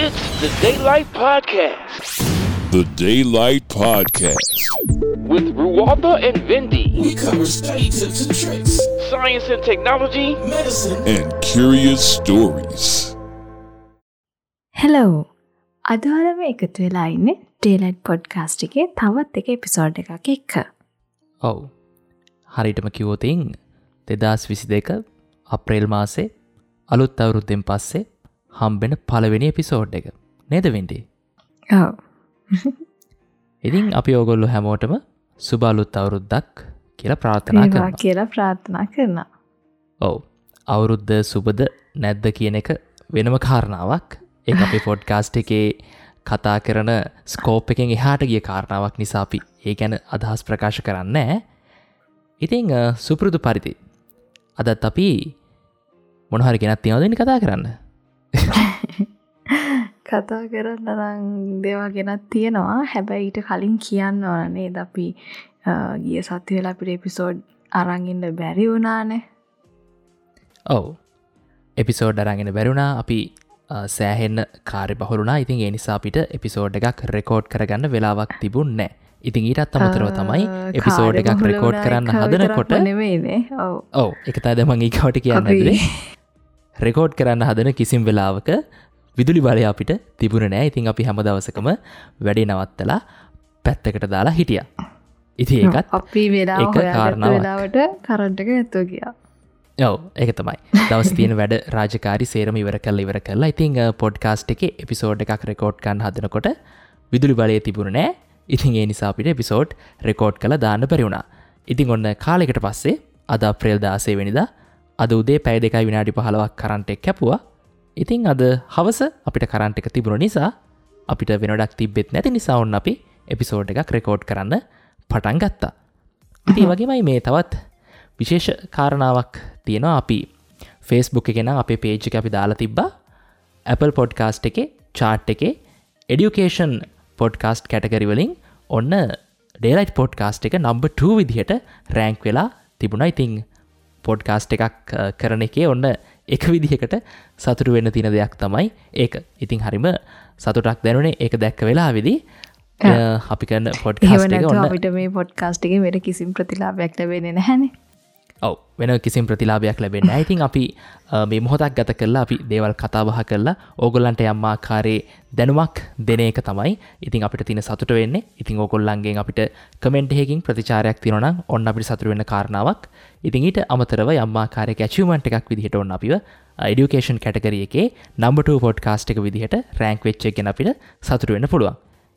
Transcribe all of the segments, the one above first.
It's the Daylight Podcast. The Daylight Podcast. With Ruwatha and Vindi. We cover study tips and tricks, science and technology, medicine, and curious stories. Hello. අද ඔයාලම එකතු වෙලා ඉන්නේ Daylight Podcast එකේ තවත් එක episode එකක් එක්ක. ඔව්. හරියටම කිව්වොත් 2022 අප්‍රේල් මාසේ අලුත් අවුරුද්දෙන් පස්සේ හම්බෙන පළවෙනි එපිසෝඩ් එක. නේද වෙන්ඩි? ඔව්. ඉතින් අපි ඕගොල්ලෝ හැමෝටම සුබ අලුත් අවුරුද්දක් කියලා ප්‍රාර්ථනා කරනවා. කියලා ප්‍රාර්ථනා කරනවා. ඔව්. අවුරුද්ද සුබද නැද්ද කියන එක වෙනම කාරණාවක්. ඒක අපේ පොඩ්කාස්ට් එකේ කතා කරන ස්කෝප් එකෙන් එහාට ගිය කාරණාවක් නිසා අපි ඒ ගැන අදහස් ප්‍රකාශ කරන්නේ නැහැ. ඉතින් සුපුරුදු පරිදි අදත් අපි මොන හරි ගෙනත් තියනවද ඉන්නේ කතා කරන්න? කතා කරන්න නම් දේවල් ගෙනත් තියෙනවා. හැබැයි ඊට කලින් කියන්න ඕන නේද, අපි ගිය සතිය වෙලා අපිට එපිසෝඩ් අරන් ඉන්න බැරි වුණානේ. ඔව්. එපිසෝඩ් අරන් ඉන්න බැරි වුණා. අපි සෑහෙන්න කාර්යබහුල වුණා. ඉතින් ඒ නිසා අපිට එපිසෝඩ් එකක් රෙකෝඩ් කරගන්න වෙලාවක් තිබුණේ නැහැ. ඉතින් ඊටත් අමතරව තමයි එපිසෝඩ් එකක් රෙකෝඩ් කරන්න හදනකොට නෙමෙයිනේ. ඔව්. ඔව්. ඒක තමයි දැන් මං ඊගාවට කියන්න හැදුවේ. රෙකෝඩ් කරන්න හදන කිසිම වෙලාවක විදුලි බලය අපිට තිබුණේ නෑ. ඉතින් අපි හැම දවසකම වැඩේ නවත්තලා පැත්තකට දාලා හිටියා. ඉතින් ඒකත් අපි වෙලාව හොයාගත්ත වෙලාවට කරන්ට් එක නැතුව ගියා. ඔව්, ඒක තමයි. දවස් තියෙන වැඩ රාජකාරි සේරම ඉවර කරලා ඉතින් පොඩ්කාස්ට් එකේ එපිසෝඩ් එකක් රෙකෝඩ් කරන්න හදනකොට විදුලි බලය තිබුණේ නෑ. ඉතින් ඒ නිසා අපිට එපිසෝඩ් රෙකෝඩ් කරලා දාන්න බැරි වුණා. ඉතින් ඔන්න කාලයකට පස්සේ අද අප්‍රේල් 16 වෙනිදා අද උදේ පැය 2 විනාඩි 15ක් කරන්ට් එක කැපුවා. ඉතින් අද හවස අපිට කරන්ට් එක තිබුණ නිසා අපිට වෙන වැඩක් තිබ්බෙත් නැති නිසා ඔන්න අපි එපිසෝඩ් එකක් රෙකෝඩ් කරන්න පටන් ගත්තා. ඉතින් ඒ වගේමයි මේ තවත් විශේෂ කාරණාවක් තියෙනවා. අපි Facebook එකේ නම් අපේ පේජ් එක අපි දාලා තිබ්බා. Apple Podcast එකේ චාට් එකේ Education Podcast category වලින් ඔන්න Daylight Podcast එක නම්බර් 2 විදිහට රෑන්ක් වෙලා තිබුණා. ඉතින් පොඩ්කාස්ට් එකක් කරන එකේ ඔන්න එක විදිහකට සතුටු වෙන්න තියෙන දෙයක් තමයි ඒක. ඉතින් හරිම සතුටක් දැනුනේ ඒක දැක්ක වෙලාවේදී. අපි කරන පොඩ්කාස්ට් එක ඔන්න අපිට මේ පොඩ්කාස්ට් එකේ වෙන කිසිම ප්‍රතිලාභයක් ලැබෙන්නේ නැහැනේ. ඔව්, වෙන කිසිම ප්‍රතිලාභයක් ලැබෙන්නේ නැහැ. ඉතින් අපි මේ මොහොතක් ගත කරලා අපි දේවල් කතා බහ කරලා ඕගොල්ලන්ට යම් ආකාරයේ දැනුමක් දෙන එක තමයි ඉතින් අපිට තියෙන සතුට වෙන්නේ. ඉතින් ඕගොල්ලන්ගෙන් අපිට කමෙන්ට් එකකින් ප්‍රතිචාරයක් තියෙනවා නම් ඔන්න අපිට සතුට වෙන්න කාරණාවක්. ඉතින් ඊට අමතරව යම් ආකාරයක ඇචීව්මන්ට් එකක් විදිහට ඔන්න අපිව එඩියුකේෂන් කැටගරි එකේ නම්බර් 2 පොඩ්කාස්ට් එක විදිහට රෑන්ක් වෙච්ච එක ගැන අපිට සතුට වෙන්න පුළුවන්.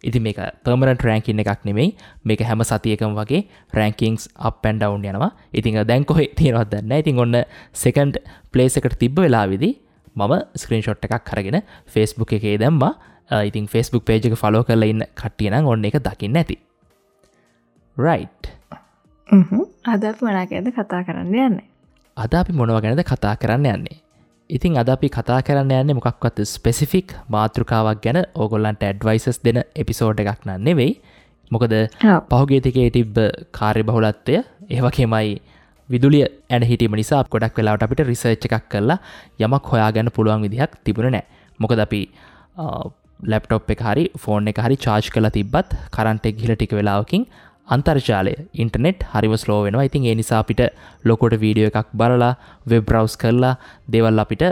ඉතින් මේක පර්මනන්ට් රෑන්කින් එකක් නෙමෙයි. මේක හැම සතියකම වගේ රෑන්කින්ග්ස් අප් ඇන්ඩ් ඩවුන් යනවා. ඉතින් දැන් කොහේ තියෙනවද දන්නේ නැහැ. ඉතින් ඔන්න සෙකන්ඩ් ප්ලේස් එකට තිබ්බ වෙලාවේදී මම ස්ක්‍රීන්ෂොට් එකක් අරගෙන Facebook එකේ දැම්මා. ඉතින් Facebook page එක ෆලෝ කරලා ඉන්න කට්ටිය නම් ඔන්න ඒක දකින්න ඇති. රයිට්. අද අපි මොනවා ගැනද කතා කරන්න යන්නේ? අද අපි මොනවා ගැනද කතා කරන්න යන්නේ? ඉතින් අද අපි කතා කරන්න යන්නේ මොකක්වත් ස්පෙසිෆික් මාතෘකාවක් ගැන ඕගොල්ලන්ට ඇඩ්වයිසස් දෙන එපිසෝඩ් එකක් නන් නෙවෙයි. මොකද පහුගිය ටිකේ තිබ්බ කාර්යබහුලත්වය ඒ වගේමයි විදුලිය ඇන හිටීම නිසා ගොඩක් වෙලාවට අපිට රිසර්ච් එකක් කරලා යමක් හොයාගන්න පුළුවන් විදිහක් තිබුණේ නැහැ. මොකද අපි ලැප්ටොප් එක හරි ෆෝන් එක හරි චාර්ජ් කරලා තිබ්බත් කරන්ට් එක ගිහලා ටික වෙලාවකින් අන්තර්ජාලය ඉන්ටර්නෙට් හරිම ස්ලෝ වෙනවා. ඉතින් ඒ නිසා අපිට ලොකුවට වීඩියෝ එකක් බලලා වෙබ් බ්‍රවුස් කරලා දේවල් අපිට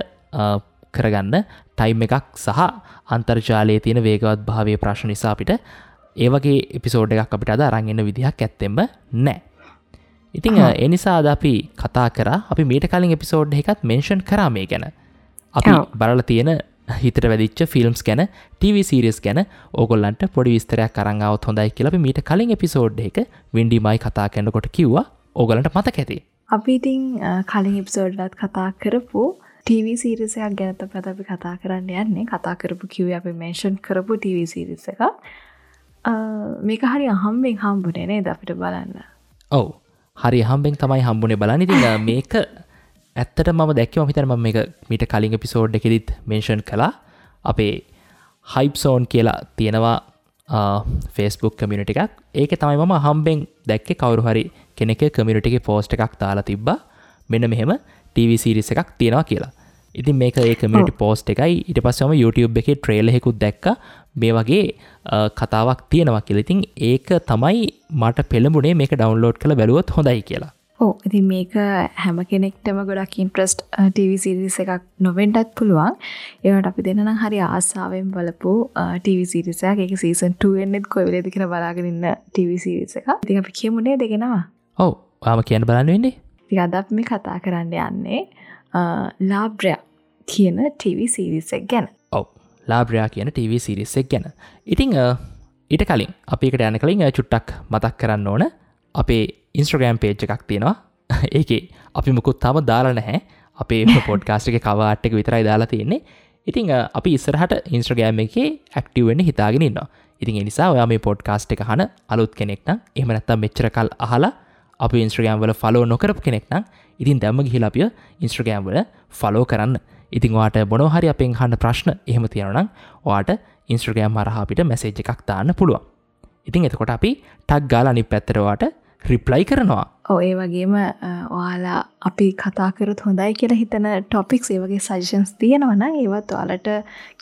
කරගන්න ටයිම් එකක් සහ අන්තර්ජාලයේ තියෙන වේගවත් භාවයේ ප්‍රශ්න නිසා අපිට ඒ වගේ එපිසෝඩ් එකක් අපිට අද අරන් එන්න විදිහක් ඇත්තෙම නැහැ. ඉතින් ඒ නිසා අද අපි කතා කරා. අපි මීට කලින් එපිසෝඩ් එකකත් මෙන්ෂන් කරා මේ ගැන. අපි බලලා තියෙන හිතට වැදිච්ච ෆිල්ම්ස් ගැන, ටීවී සීරීස් ගැන ඕගොල්ලන්ට පොඩි විස්තරයක් අරන් ආවොත් හොඳයි කියලා අපි මීට කලින් එපිසෝඩ් එකක වින්ඩි මයි කතා කරනකොට කිව්වා. ඕගොල්ලන්ට මතක ඇති. අපි ඉතින් කලින් එපිසෝඩ් එකත් කතා කරපු ටීවී සීරීස් එකක් ගැන තමයි අපි කතා කරන්න යන්නේ. කතා කරපු කිව්වේ අපි මෙන්ෂන් කරපු ටීවී සීරීස් එකක්. මේක හරි අහම්බෙන් හම්බුනේ නේද අපිට බලන්න? ඔව්. හරි අහම්බෙන් තමයි හම්බුනේ බලන්න. ඉතින් මේක ඇත්තට මම දැක්කේ, මම හිතන්නේ මම මේක මීට කලින් එපිසෝඩ් එකෙදිත් මෙන්ෂන් කළා. අපේ හයිප් සෝන් කියලා තියෙනවා Facebook community එකක්. ඒකේ තමයි මම අහම්බෙන් දැක්කේ කවුරු හරි කෙනෙක්ගේ කමියුනිටි එකේ පෝස්ට් එකක් දාලා තිබ්බා. මෙන්න මෙහෙම TV series එකක් තියෙනවා කියලා. ඉතින් මේක ඒ කමියුනිටි පෝස්ට් එකයි. ඊට පස්සේ මම YouTube එකේ ට්‍රේලර් එකකුත් දැක්කා මේ වගේ කතාවක් තියෙනවා කියලා. ඉතින් ඒක තමයි මට පෙළඹුණේ මේක ඩවුන්ලෝඩ් කරලා බැලුවොත් හොඳයි කියලා. ඔව්, ඉතින් මේක හැම කෙනෙක්ටම ගොඩක් ඉන්ට්‍රස්ට් TV series එකක් නොවෙන්නත් පුළුවන්. ඒ වුණාට අපි දෙන්න නම් හරි ආසාවෙන් බලපු TV series එකක්. ඒක සීසන් 2 වෙන්නෙත් කොයි වෙලේද කියලා බලාගෙන ඉන්න TV series එකක්. ඉතින් අපි කියමු නේද ඒක නම? ඔව්, ඔයාම කියන්න බලන්න වෙන්නේ. ඉතින් අද අපි මේ කතා කරන්න යන්නේ ලාබ්‍රයා කියන TV series එක ගැන. ඔව්, ලාබ්‍රයා කියන TV series එක ගැන. ඉතින් ඊට කලින් අපි එකට යන කලින් චුට්ටක් මතක් කරන්න ඕන, අපේ Instagram page එකක් තියෙනවා. ඒකේ අපි මොකුත් තාම දාලා නැහැ. අපේ පොඩ්කාස්ට් එකේ කවර් ආර්ට් එක විතරයි දාලා තියෙන්නේ. ඉතින් අපි ඉස්සරහට Instagram එකේ ඇක්ටිව් වෙන්න හිතාගෙන ඉන්නවා. ඉතින් ඒ නිසා ඔයා මේ පොඩ්කාස්ට් එක අහන අලුත් කෙනෙක් නම්, එහෙම නැත්නම් මෙච්චර කල් අහලා අපි Instagram වල ෆලෝ නොකරපු කෙනෙක් නම්, ඉතින් දැම්ම ගිහිලා අපිව Instagram වල ෆලෝ කරන්න. ඉතින් ඔයාට මොනවා හරි අපෙන් අහන්න ප්‍රශ්න එහෙම තියෙනවා නම් ඔයාට Instagram හරහා අපිට මැසේජ් එකක් දාන්න පුළුවන්. ඉතින් එතකොට අපි ටග් ගාලා අනිත් පැත්තට ඔයාට රිප්ලයි කරනවා. ඔව්, ඒ වගේම ඔයාලා අපි කතා කරොත් හොඳයි කියලා හිතන ටොපික්ස්, ඒ වගේ සජෙෂන්ස් තියෙනවා නම් ඒවත් ඔයාලට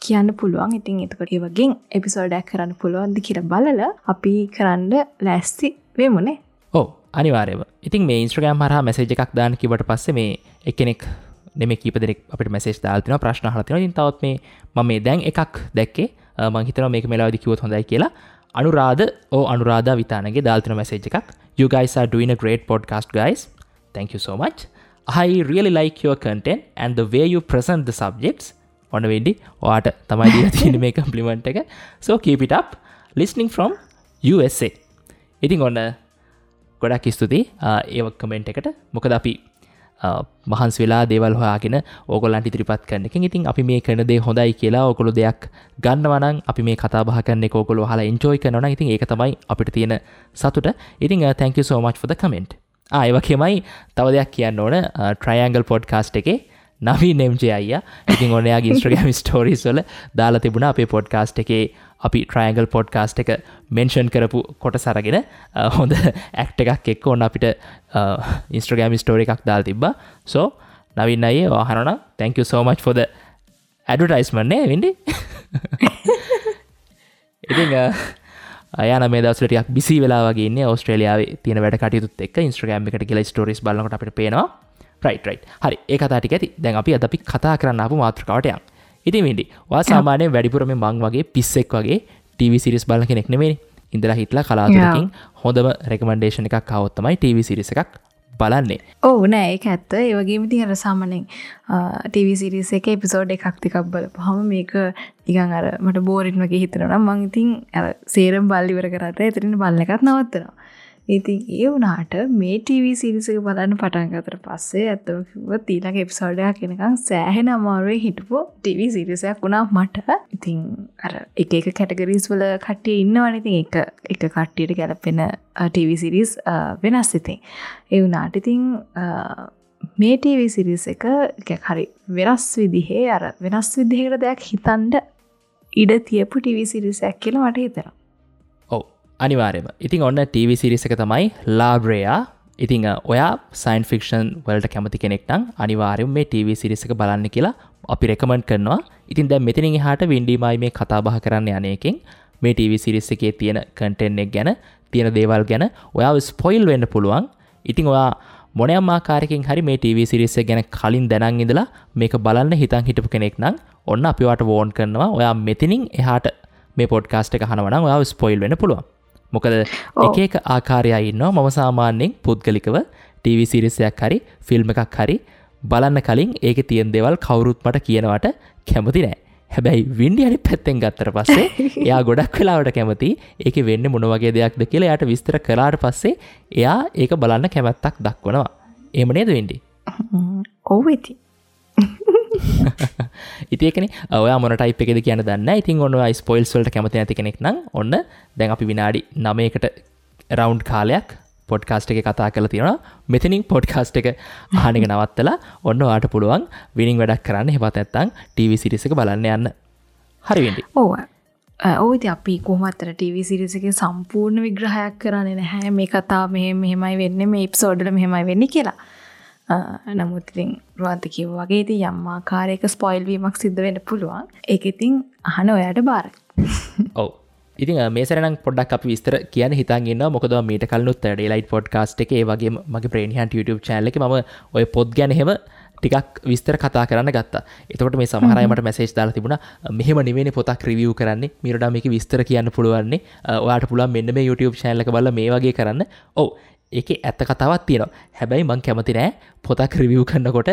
කියන්න පුළුවන්. ඉතින් එතකොට ඒ වගේ එපිසෝඩ් එකක් කරන්න පුළුවන්ද කියලා බලලා අපි කරන්න ලෑස්ති වෙමුනේ. ඔව්, අනිවාර්යයෙන්ම. ඉතින් මේ Instagram හරහා මැසේජ් එකක් දාන්න කිව්වට පස්සේ මේ එක්කෙනෙක් නෙමෙයි කීප දෙනෙක් අපිට මැසේජ් දාලා තිනවා, ප්‍රශ්න අහලා තිනවා. ඉතින් තවත් මේ මම මේ දැන් එකක් දැක්කේ, මං හිතනවා මේක මෙලාවේදී කිව්වොත් හොඳයි කියලා. අනුරාධ අනුරාධා විතානගේ දාලා තින මැසේජ් එකක්. You guys are doing a great podcast, guys. Thank you so much. I really like your content and the way you present the subjects. ඔන්න වෙන්ඩි ඔයාට තමයි දීලා තියෙන්නේ මේ කම්ප්ලිමන්ට් එක. So keep it up. Listening from USA. ඉතින් ඔන්න ගොඩක් ස්තුතියි ඒ කමෙන්ට් එකට. මොකද අපි මහන්සි වෙලා දේවල් හොයාගෙන ඕගොල්ලන්ට ඉදිරිපත් කරන එකෙන් ඉතින් අපි මේ කරන දේ හොඳයි කියලා ඕගොල්ලෝ දෙයක් ගන්නවා නම්, අපි මේ කතා බහ කරන එක ඕගොල්ලෝ අහලා එන්ජොයි කරනවා නම් ඉතින් ඒක තමයි අපිට තියෙන සතුට. ඉතින් thank you so much for the comment. ඒ වගේමයි තව දෙයක් කියන්න ඕන, Triangle podcast එකේ නවීන් MJ අයියා ඉතින් ඔන්න එයාගේ Instagram stories වල දාලා තිබුණා අපේ podcast එකේ අපි Triangle podcast එක මෙන්ෂන් කරපු කොටස අරගෙන හොඳ ඇක්ට් එකක් එක්ක ඔන්න අපිට Instagram story එකක් දාලා තිබ්බා. So Naveen අයියේ ඔයා අහනවා නම් thank you so much for the advertisement නේ වෙන්නේ. ඉතින් අයා නම් මේ දවස්වල ටිකක් බිසි වෙලා වගේ ඉන්නේ ඕස්ට්‍රේලියාවේ තියෙන වැඩ කටයුතුත් එක්ක. Instagram එකට ගිහලා ස්ටෝරීස් බලනකොට අපිට පේනවා. රයිට් හරි, ඒ කතා ටික ඇති. දැන් අපි අද අපි කතා කරන්න ආපු මාතෘකාවට යමු. ඉතින් වෙන්ඩි, ඔයා සාමාන්‍යයෙන් වැඩිපුර මේ මං වගේ පිස්සෙක් වගේ TV series බලන කෙනෙක් නෙමෙයිනේ. ඉඳලා හිටලා කලාතුරකින් හොඳම රෙකමෙන්ඩේෂන් එකක් ආවොත් තමයි TV series එකක් බලන්නේ. ඔව් නෑ, ඒක ඇත්ත. ඒ වගේම ඉතින් අර සාමාන්‍යයෙන් TV series එකේ එපිසෝඩ් එකක් දෙකක් බලපුවහම මේක නිකන් අර මට බෝරින් වගේ හිතෙනවා නම් මං ඉතින් අර සේරම බලලා ඉවර කරාට එතනින් බලන එකත් නවත්තනවා. ඉතින් ඒ වුණාට මේ TV series එක බලන්න පටන් ගත්තට පස්සේ ඇත්තම කිව්වොත් ඊළඟ එපිසෝඩ් එකක් එනකන් සෑහෙන අමාරුවෙන් හිටපු TV series එකක් වුණා මට. ඉතින් අර එක එක කැටගරිස් වල කට්ටිය ඉන්නවනේ. ඉතින් එක එක කට්ටියට ගැලපෙන TV series වෙනස්. ඉතින් ඒ වුණාට ඉතින් මේ TV series එක ටිකක් හරි වෙනස් විදිහේ අර වෙනස් විදිහකට දෙයක් හිතන්න ඉඩ තියපු TV series එකක් කියලා මට හිතෙනවා. අනිවාර්යයෙන්ම. ඉතින් ඔන්න TV series එක තමයි ලාබ්‍රයා. ඉතින් ඔයා සයන්ස් ෆික්ෂන් වලට කැමති කෙනෙක් නම් අනිවාර්යයෙන්ම මේ TV series එක බලන්න කියලා අපි රෙකමන්ඩ් කරනවා. ඉතින් දැන් මෙතනින් එහාට වින්ඩිමයි මේ කතා බහ කරන්න යන එකෙන් මේ TV series එකේ තියෙන කන්ටෙන්ට් එක ගැන, තියෙන දේවල් ගැන ඔයාව ස්පොයිල් වෙන්න පුළුවන්. ඉතින් ඔයා මොනයම් ආකාරයකින් හරි මේ TV series එක ගැන කලින් දැනන් ඉඳලා මේක බලන්න හිතන් හිටපු කෙනෙක් නම් ඔන්න අපි ඔයාට වෝන් කරනවා. ඔයා මෙතනින් එහාට මේ පොඩ්කාස්ට් එක අහනවා නම් ඔයාව ස්පොයිල් වෙන්න පුළුවන්. මොකද එක එක ආකාරය ඉන්නවා. මම සාමාන්‍යයෙන් පුද්ගලිකව TV series එකක් හරි ෆිල්ම් එකක් හරි බලන්න කලින් ඒකේ තියෙන දේවල් කවුරුත් මට කියනවට කැමති නෑ. හැබැයි වින්ඩි අනිත් පැත්තෙන් ගත්තට පස්සේ එයා ගොඩක් වෙලාවට කැමති ඒකේ වෙන්නේ මොන වගේ දෙයක්ද කියලා එයාට විස්තර කළාට පස්සේ එයා ඒක බලන්න කැමැත්තක් දක්වනවා. එහෙම නේද වින්ඩි? ඔව් ඉතින්. ඉතින් ඒකනේ ඔයා මොන ටයිප් එකේද කියන්න දන්නේ නැහැ. ඉතින් ඔන්න ඔයා ස්පොයිල්ස් වලට කැමති නැති කෙනෙක් නම් ඔන්න දැන් අපි විනාඩි 9කට රවුන්ඩ් කාලයක් පොඩ්කාස්ට් එකේ කතා කරලා තියෙනවා. මෙතනින් පොඩ්කාස්ට් එක අහන එක නවත්තලා ඔන්න ඔයාට පුළුවන් විනින් වැඩක් කරන්න. එහෙමත් නැත්නම් TV series එක බලන්න යන්න. හරි වෙන්නේ. ඔව්. ඔව් ඉතින් අපි කොහොමත් අර TV series එකේ සම්පූර්ණ විග්‍රහයක් කරන්නේ නැහැ. මේ කතාව මෙහෙම මෙහෙමයි වෙන්නේ, මේ එපිසෝඩ් වල මෙහෙමයි වෙන්නේ කියලා. නමුත් ඉතින් රුවන්ත කිව්වා වගේ ඉතින් යම් ආකාරයක ස්පොයිල් වීමක් සිද්ධ වෙන්න පුළුවන්. ඒක ඉතින් අහන ඔයාට බාරයි. ඔව්. ඉතින් මේ සැරේ නම් පොඩ්ඩක් අපි විස්තර කියන්න හිතන් ඉන්නවා. මොකද මම මීට කලිනුත් ඩේලයිට් පොඩ්කාස්ට් එකේ ඒ වගේම මගේ බ්‍රේන් හන්ට් YouTube channel එකේ මම ඔය පොත් ගැන එහෙම ටිකක් විස්තර කතා කරන්න ගත්තා. එතකොට මේ සමහර අය මට මැසේජ් දාලා තිබුණා මෙහෙම නෙවෙයිනේ පොතක් රිවිව් කරන්නේ. මීට වඩා මේකේ විස්තර කියන්න පුළුවන්නේ. ඔයාට පුළුවන් මෙන්න මේ YouTube channel එක බලලා මේ වගේ කරන්න. ඔව්. ඒකේ ඇත්ත කතාවක් තියෙනවා. හැබැයි මං කැමති නෑ පොතක් රිවිව් කරනකොට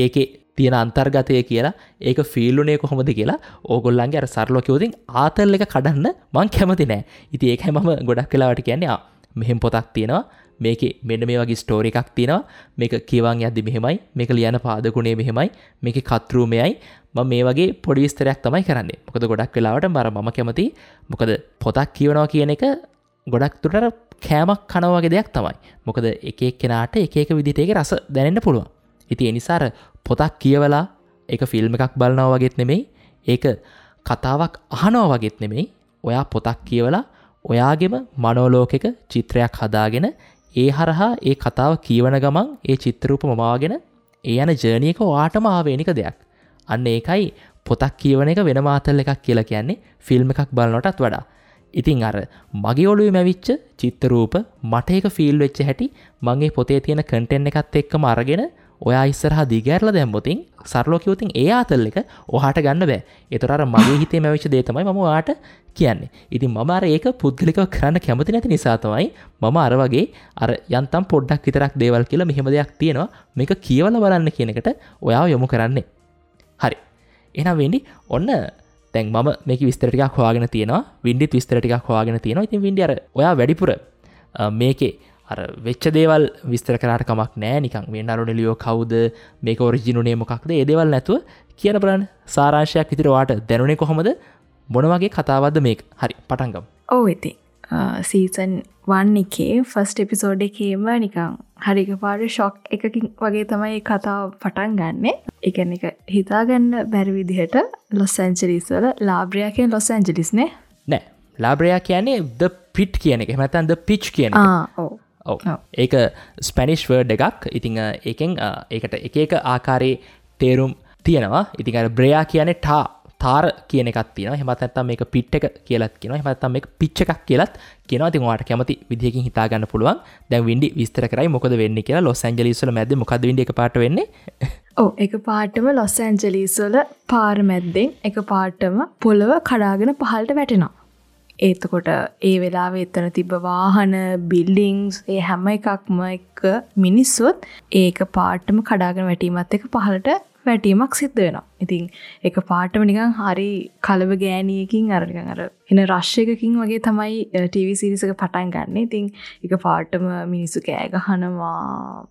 ඒකේ තියෙන අන්තර්ගතය කියලා ඒක ෆීල් උනේ කොහොමද කියලා ඕගොල්ලන්ගේ අර සරලව කිව්වොත් ආතල් එක කඩන්න මං කැමති නෑ. ඉතින් ඒකයි මම ගොඩක් වෙලාවට කියන්නේ මෙහෙම පොතක් තියෙනවා. මේකේ මෙන්න මේ වගේ ස්ටෝරි එකක් තියෙනවා. මේක කියවන් යද්දි මෙහෙමයි. මේක ලියන පාදකුණේ මෙහෙමයි. මේකේ කතෘ මෙයයි. මම මේ වගේ පොඩි විස්තරයක් තමයි කරන්නේ. මොකද ගොඩක් වෙලාවට මම කැමති මොකද පොතක් කියවනවා කියන එක ගොඩක් දුරට අර කෑමක් කනවා වගේ දෙයක් තමයි. මොකද එක එක්කෙනාට එක එක විදිහට ඒකේ රස දැනෙන්න පුළුවන්. ඉතින් ඒ නිසා අර පොතක් කියවලා ඒක ෆිල්ම් එකක් බලනවා වගේත් නෙමෙයි, ඒක කතාවක් අහනවා වගේත් නෙමෙයි. ඔයා පොතක් කියවලා ඔයාගේම මනෝලෝකයක චිත්‍රයක් හදාගෙන ඒ හරහා ඒ කතාව කියවන ගමන් ඒ චිත්‍රරූප මවාගෙන ඒ යන ජර්නි එක ඔයාටම ආවේනික දෙයක්. අන්න ඒකයි පොතක් කියවන එක වෙනම ආතල් එකක් කියලා කියන්නේ ෆිල්ම් එකක් බලනටත් වඩා. ඉතින් අර මගේ ඔළුවේ මැවිච්ච චිත්‍රරූප මට ඒක ෆීල් වෙච්ච හැටි මං ඒ පොතේ තියෙන කන්ටෙන්ට් එකත් එක්කම අරගෙන ඔයා ඉස්සරහා දිගහැරලා දැම්මොතින් සරලව කිව්වොතින් ඒ ආතල් එක ඔයාට ගන්න බෑ. ඒතර අර මගේ හිතේ මැවිච්ච දේ තමයි මම ඔයාට කියන්නේ. ඉතින් මම අර ඒක පුද්ගලිකව කරන්න කැමති නැති නිසා තමයි මම අර වගේ අර යන්තම් පොඩ්ඩක් විතරක් දේවල් කියලා මෙහෙම දෙයක් තියෙනවා මේක කියවලා බලන්න කියන එකට ඔයාව යොමු කරන්නේ. හරි. එහෙනම් වෙන්නේ ඔන්න දැන් මම මේකේ විස්තර ටිකක් හොයාගෙන තියෙනවා. වින්ඩිත් විස්තර ටිකක් හොයාගෙන තියෙනවා. ඉතින් වින්ඩි අර ඔයා වැඩිපුර මේකේ අර වෙච්ච දේවල් විස්තර කරාට කමක් නෑ. නිකන් මේ නරු නෙලියෝ කවුද මේක ඔරිජින් උනේ මොකක්ද ඒ දේවල් නැතුව කියන බලන්න සාරාංශයක් විතර ඔයාට දැනුනේ කොහොමද මොන වගේ කතාවක්ද මේක. හරි පටන් ගමු. ඔව් ඉතින් සීසන් 1 එකේ ෆස්ට් එපිසෝඩ් එකේම නිකන් හරි එකපාරට ෂොක් එකකින් වගේ තමයි මේ කතාව පටන් ගන්නෙ. ඒ කියන්නේ ඒක හිතාගන්න බැරි විදිහට ලොස් ඇන්ජලිස් වල ලාබ්‍රියා කියන්නේ ලොස් ඇන්ජලිස් නේ? නෑ. ලාබ්‍රියා කියන්නේ the pit කියන එක. එහෙම නැත්නම් the pitch කියන එක. ඔව්. ඔව්. ඒක ස්පැනිෂ් වර්ඩ් එකක්. ඉතින් ඒකෙන් ඒකට එක එක ආකාරයේ තේරුම් තියෙනවා. ඉතින් අර බ්‍රයා කියන්නේ තාර කියන එකක් තියෙනවා. එහෙමත් නැත්නම් මේක පිට් එක කියලාත් කියනවා. එහෙමත් නැත්නම් මේක පිච් එකක් කියලාත් කියනවා. ඉතින් ඔයාලට කැමති විදිහකින් හිතා ගන්න පුළුවන්. දැන් වින්ඩි විස්තර කරයි මොකද වෙන්නේ කියලා. ලොස් ඇන්ජලිස් වල මැද්දේ මොකද්ද වින්ඩි එකපාරට වෙන්නේ? ඔව් එකපාරටම ලොස් ඇන්ජලිස් වල පාර මැද්දෙන් එකපාරටම පොළව කඩාගෙන පහළට වැටෙනවා. එතකොට ඒ වෙලාවේ එතන තිබ්බ වාහන, බිල්ඩින්ග්ස් ඒ හැම එකක්ම එක මිනිස්සුත් ඒක පාටම කඩාගෙන වැටීමත් එක්ක පහළට වැටීමක් සිද්ධ වෙනවා. ඉතින් ඒක පාටම නිකන් හරි කලබ ගෑණියකින් අර නිකන් අර එන රෂ් එකකින් වගේ තමයි ටීවී සීරීස් එක පටන් ගන්න. ඉතින් ඒක පාටම මිනිස්සු කෑ ගහනවා,